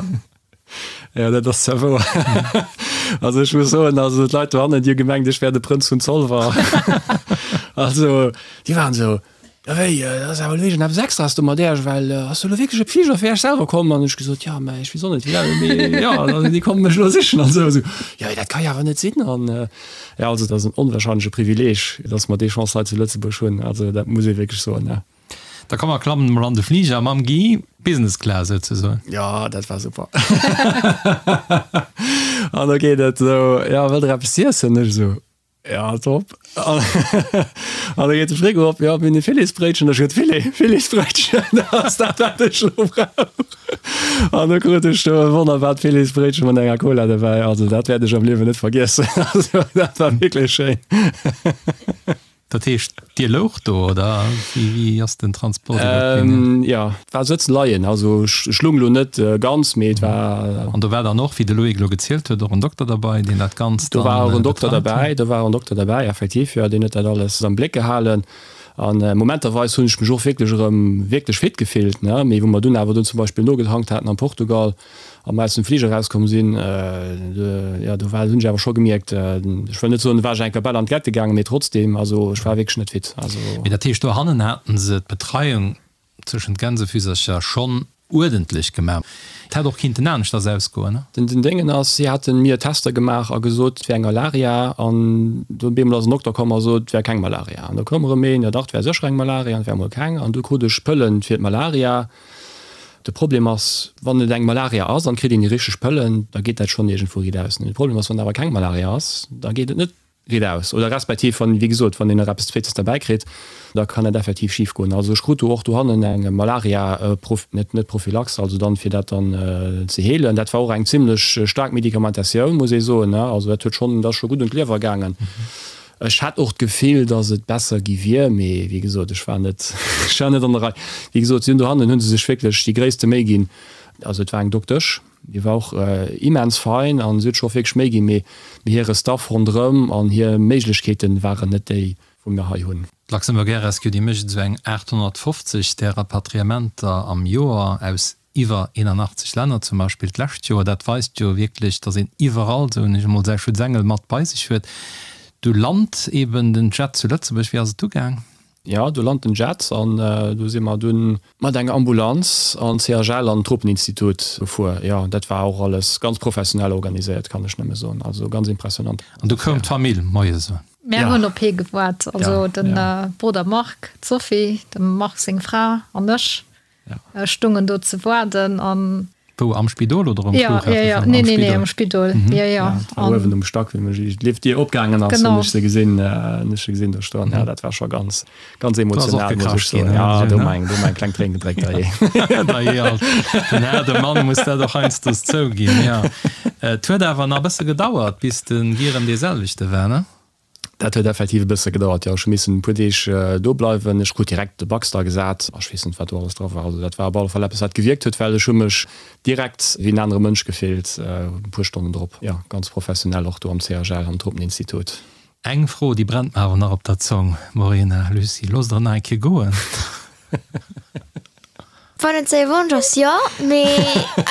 Speaker 3: Jo, dat ass zwar wouer. Also ech muss soen, also d'Leit dohannen, déi hu gemengt, ech wär de Prënz vun Zolwer. Also déi waren esou, Jo wéi, dat ass awer elo iergendeppes Extraes do mat Äerch, well ass do elo wierklech e Fliger fir Äerch selwer komm? An ech gesot, jo, mä ech weess och net wéi dat, mee jo, also déi komme mech elo sichen an esou. Esou, jo, dat ka jo awer net sinn. An jo, also dat ass en onwahrscheinleche Privileeg, datt mer déi Chance hei zu Lëtzebuerg hunn. Also dat muss ee wierklech soen, ja.
Speaker 2: Da komm mer klammen emol an de Fliger mam Guy, Business Class souzesoen.
Speaker 3: Jo, dat war super. An da geet et esou, jo, wëllt der eppes z'iessen? Ech esou, Ja, top. An da geet de Frigo op, ja, mir hunn e Filetsbréitchen. Ech huet Filet, Filetsbréitchen, dat ass dat, wat ech elo brauch. An da krut ech do e wonnerbart Filetsbréitchen mat enger Cola dobäi. Also dat wäert ech am Liewen net vergiessen. Also dat war wierklech schéin.
Speaker 2: Dat heescht, Dir loucht do, oder wéi ass den Transport iwwert ginn?
Speaker 3: Jo, et war Sëtzen, Leien. Also ech lung elo net ganz, mee et war.
Speaker 2: An do war dann och, wéi de Loïc elo gezielt huet, och en Dokter derbei, deen dat Ganzt
Speaker 3: dann betreut huet? Do war och en Dokter derbäi, do war och en Dokter derbäi, effektiv, jo, deen huet dat alles am Bléck gehalen. An momenterweis hunn ech mech och wierklech erëm wierklech fit gefillt, ne, mee wou mer dunn awer dunn zum Beispill nogetankt haten am Portugal, a mer aus dem Fliger erauskomm sinn, jo, do war, hunn ech awer scho gemierkt, ech wëll net soen, do war ech eng Kéier bal an d'Gette gaangen, mee trotzdem, also ech war wierklech net fit. Also.
Speaker 2: Mee dat heescht, dohannen haten se d'Betreiung zwëschen d'Gänsefüsercher schonn uerdentlech gemaach. Et hätt och kinnten aneschters ausgoen, ne?
Speaker 3: Den Déngen ass, si haten mir Tester gemaach a gesot, et wär eng Malaria, an do op eemol ass en Dokter komm a sot, et wär keng Malaria. An da koum erëm een, jo dach, et wär sécher eng Malaria, an et wär emol keng. An du krut ech Pëllen fir d'Malaria. De Problem ass, wann et eng Malaria ass an et kritt een déi richteg Pëllen, da geet dat schonn iergendwou riit aus. De Problem ass, wann et awer keng Malaria ass, da geet et net riit aus. Oder respektiv wann, wéi gesot, wann een nach eppes Zweetes derbäi kritt, da kann dat effektiv schif goen. Also ech krut do och dohannen eng Malaria, net net Prophylaxe, also dann fir dat dann ze heelen. Dat war och eng zimlech staark Medikamentatioun, muss ee soen. Also dat huet schonn, dat ass scho gutt un d'Liewer gaangen. Ech hat och d'Gefill, datt et besser gi wier, mee wéi gesot, ech war net, ech war net an der Rei. Wéi gesot, si hunn dohannen hu se sech wierklech déi gréisste Méi ginn. Also et war eng Doktesch, déi war och immens fein a si huet sech och wierklech Méi ginn, mee hire Staff ronderëm an hir Méiglechkeete waren net déi, wou mir hei hunn.
Speaker 2: D'Luxembourg Air Rescue, déi mécht esou eng 850 där Rapatriementer am Joer aus iwwer 81 Länner zum Beispill d'lescht Joer. Dat weist jo wierklech, datt een iwwerall, soen ech emol, säi Schutzengel mat bei sech huet. Du lant eben den Jet zu Lëtzebuerg. Wéi ass et du gaang?
Speaker 3: Jo, du lant den Jet an du si mer dunn mat enger Ambulanz an d'CHL an d'Tropeninstitut gefuer. Jo, dat war och alles ganz professionell organiséiert, kann ech nëmme soen. Also ganz impressionant.
Speaker 2: An du koum d'Famill moies un?
Speaker 4: Mär hunn op hie gewaart, also de Brudder Marc, d'Sophie, dem Marc seng Fra an ech. Stungen do ze waarden an.
Speaker 2: Wou, am Spidol oder um
Speaker 4: Flughafen? Ja, ja, nee, nee, nee, am Spidol. Ja, ja.
Speaker 3: An uewen um Stack, wéi mech d'Liftdier opgaangen ass, hunn ech se gesinn, hunn ech se gesinn do stoen. Ja, dat war scho ganz, ganz emotional, muss ech soen. Ja, do hu mer eng, do hu mer eng kleng Tréin gedréckt, dajee.
Speaker 2: Dajee, alt. Den haarde Mann muss dat och heiansdo zouginn, ja. Et huet awer nach e bësse gedauert, bis de Guy erëm dee selwechte war, ne?
Speaker 3: Dat huet effektiv e bësse gedauert, jo. Ech hu missen e puer Deeg do bleiwen. Ech krut direkt de Baxter gesat. Ech weess net, wat do alles dra war. Also dat war op alle Fall eppes, wat gewierkt huet, well ech hu mech direkt wéi en anere Mënsch gefillt e puer Stonnen drop. Jo, ganz professionell och do am CHL, am Tropeninstitut.
Speaker 2: Eng Fro, déi brennt mer awer nach op der Zong, Morena, Lucie, loosst der nach eng Kéier goen?
Speaker 5: Wann et säi Wonsch ass, jo, mee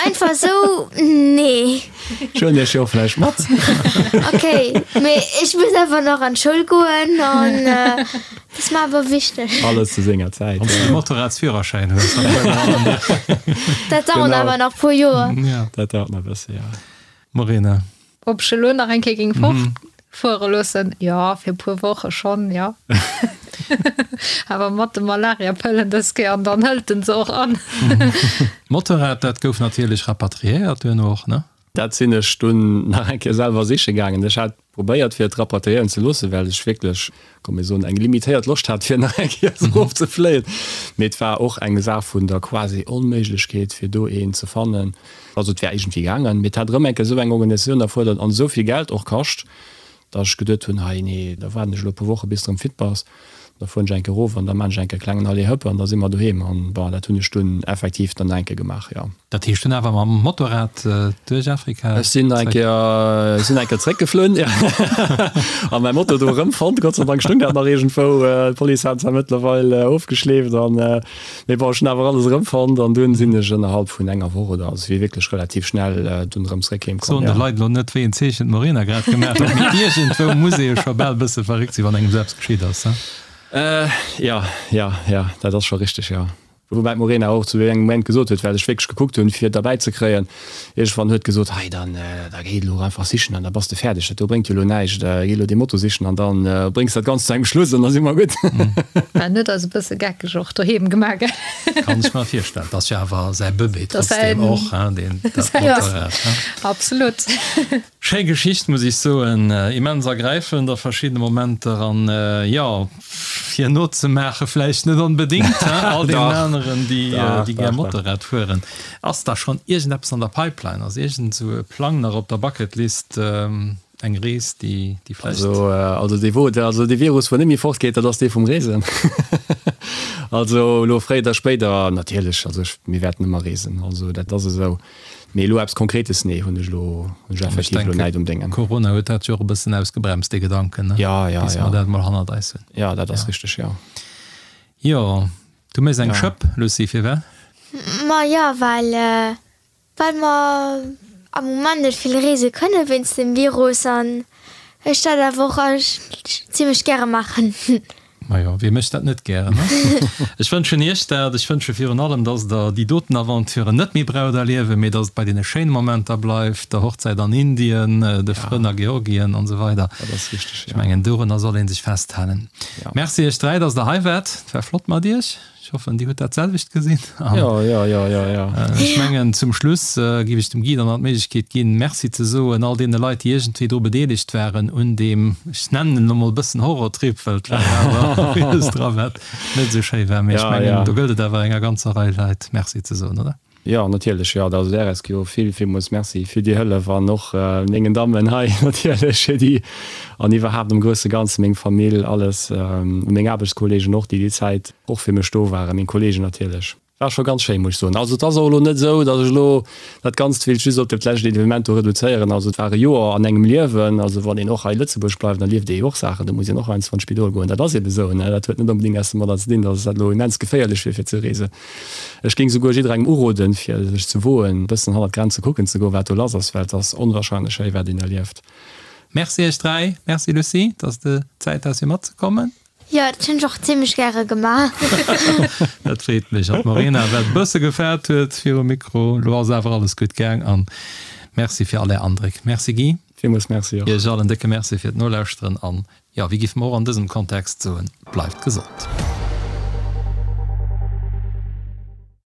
Speaker 5: einfach esou, nee.
Speaker 3: Ech huelen iech jo vläicht mat.
Speaker 5: Ok, mee ech muss awer nach an d'Schoul goen an dat ass mer awer wichteg.
Speaker 3: Alles zu senger Zäit.
Speaker 2: Wann s de de Motorradsführerschäin hues, dann fuere mer an an dir.
Speaker 5: Dat dauert awer nach e puer Joer.
Speaker 3: Jo, dat dauert nach e bësse, jo.
Speaker 2: Morena.
Speaker 4: Ob ech elo nach eng Kéier géing fortfuere loossen? Jo, fir e puer Woche schonn, jo. Awer mat de Malariapëllen dës Kéier, an dann hëlt en se och an.
Speaker 2: D'Motorrad, dat gouf natierlech rapatriéiert duerno och, ne?
Speaker 3: Dat sinn ech dunn nach eng Kéier selwer siche gaangen. Ech hat probéiert fir et rapatriéieren ze loossen, well ech wierklech, komm mir soen, eng limitéiert Loscht hat fir nach eng Kéier erof ze fléien. Mee et war och eng Saach vun der quasi Onméiglechkeet fir do een ze fannen. Also et wär iergendwéi gaangen, mee et hat erëm eng Kéier esou eng Organisatioun erfuerdert an esou vill Geld och kascht, datt ech geduet hunn, hei nee, da waarden ech elo e puer Woche bis de erëm fit bass, da fueren ech eng Kéier erof an da maan ech eng Kéier e klengen Aller-Hëpp an da si mer doheem. An bon, dat hunn ech dunn effektiv dann nach eng Kéier gemaach, jo.
Speaker 2: Dat heescht dunn awer mam Motorrad duerch Afrika
Speaker 3: Ech sinn eng Kéier, ech sinn eng Kéier zréckgeflunn, jo, a mäi Moto do erëmfonnt. Gott sei Dank stoung dat nach iergendwou. D'Police hat zwar mëttlerweil ofgeschleeft an, mee bon, ech hunn awer alles erëmfonnt an dunn sinn ech ënnerhalb vun enger Woch oder, also et wier wierklech relativ schnell dunn erëm zréck heem komm,
Speaker 2: Soen de Leit elo net, wéi een Zeechen d'Morena grad gemaach huet, mee iergendwou muss ee jo scho bal e bësse verréckt sinn, wann engem esou eppes geschitt ass, he?
Speaker 3: Jo, jo, jo, dat ass scho richteg, jo. Woubäi d'Morena och zu engem Moment gesot huet, well ech wierklech gekuckt hunn, fir et derbäi ze kréien, iergendwann huet gesot, hei dann, da géi elo einfach sichen an da bass de fäerdeg, dat do bréngt jo elo näischt, géi elo dee Moto sichen an da bréngs dat Ganzt zu engem Schluss an da si mer gutt.
Speaker 4: En huet eis e bësse geckeg och doheem gemaach, gell?
Speaker 2: Kann ech mer virstellen. 't ass jo awer säi Bëbee trotzdem och, hein, deen dat Motorrad, hein?
Speaker 4: Absolut.
Speaker 2: Schéi Geschicht, muss ech soen. Immens ergräifend a verschiddene Momenter an, jo, fir nozemaache vläicht net onbedéngt, he, all deenen aneren, déi, déi gär Motorrad fueren. Ass da schonn iergendeppes an der Pipeline? Ass iergend esou e Plang nach op der Bucketlist, eng Rees, déi, déi vläicht.
Speaker 3: Also, also dee wou, also dee Virus, wou net méi fortgeet, dat ass dee vum Reesen. Also elo fréier oder spéider natierlech, also ech, mir wäerten ëmmer reesen, also dat ass esou. Mee elo eppes Konkretes, nee, hunn ech elo, hunn ech effektiv elo näit um Déngen.
Speaker 2: Corona huet dat jo och e bëssen ausgebremst, dee Gedanken, ne?
Speaker 3: Ja, ja,
Speaker 2: Bis
Speaker 3: ja.
Speaker 2: mer dat mol hannert eis hunn.
Speaker 3: Ja, dat ass richteg, jo.
Speaker 2: Jo, du méchs eng Schëpp, Lucie, firwat?
Speaker 5: Ma jo, well, well mer am Moment net vill reese kënne wéinst dem Virus an ech dat awer och zimmlech gäre maachen.
Speaker 2: Majo, wie mécht dat net gären, ne? Ech wënschen Iech dat. Ech wënsche virun allem, dass Der déi doten Aventuren net méi braucht erliewen, mee dass et bei deene schéine Momenter bleift, der Hochzäit an Indien, de Frënn a Georgien an esou weider.
Speaker 3: Dat ass richteg,
Speaker 2: jo. Ech mengen, dorunner soll ee sech festhalen. Merci Iech 3, dass Der hei waart. Et war flott mat Iech. Ech hoffen, Dir hutt dat selwecht gesinn.
Speaker 3: Jo, jo, jo, jo, jo.
Speaker 2: Ech mengen, zum Schluss géif ech dem Guy dann nach d'Méiglechkeet ginn, Merci ze soen all deene Leit, déi iergendwéi dru bedeelegt waren un deem, ech nennen en elo mol e bëssen Horrortrip, well et war awer villes dra wat net esou schéi war. Mee ech mengen, do gëllt et awer enger ganzer Rei Leit Merci ze soen, oder?
Speaker 3: Jo, natierlech, jo. Also der RSQ vill, villmools Merci fir déi Hëllef an och mengen Dammen hei natierlech fir déi an iwwerhaapt am grousse Ganze meng Famill, alles, meng Aarbechtskolleegen och, déi déi Zäit och fir mech do waren, meng Kolleegen natierlech. War scho ganz schéin, muss ech soen. Also et ass och elo net esou, datt ech elo dat Ganzt wéilt just op dat lescht Evenement do reduzéieren. Also et war e Joer an engem Liewen. Also wann een och hei Lëtzebuerg bleift, da lieft ee jo och Saachen, do muss een och heiansdo an d'Spidol goen. Dat ass eebe esou, ne. Dat huet net onbedéngt eppes domadder ze dinn, datt dat elo immens geféierlech wier fir ze reesen. Ech géing souguer jidderengem uroden, fir sech ze woen, e bëssen hannert d'Grenze kucken ze goen, wat do lass ass, well et ass onwahrscheinlech schéi, wat een erlieft.
Speaker 2: Merci iech 3. Merci Lucie, dass de Zäit has fir matzekommen.
Speaker 5: Jo, dat hunn ech och zimlech gäre gemaach.
Speaker 2: Dat freet mech. An d'Morena, wat e bësse gefaart huet virum Mikro. Lo ass awer alles gutt gaang. An Merci fir all är Andréck. Merci Guy.
Speaker 3: Villmools Merci
Speaker 2: och. Iech all en décke Merci fir d'Nolauschteren an, jo, wéi géife mer och an dësem Kontext soen, bleift gesond.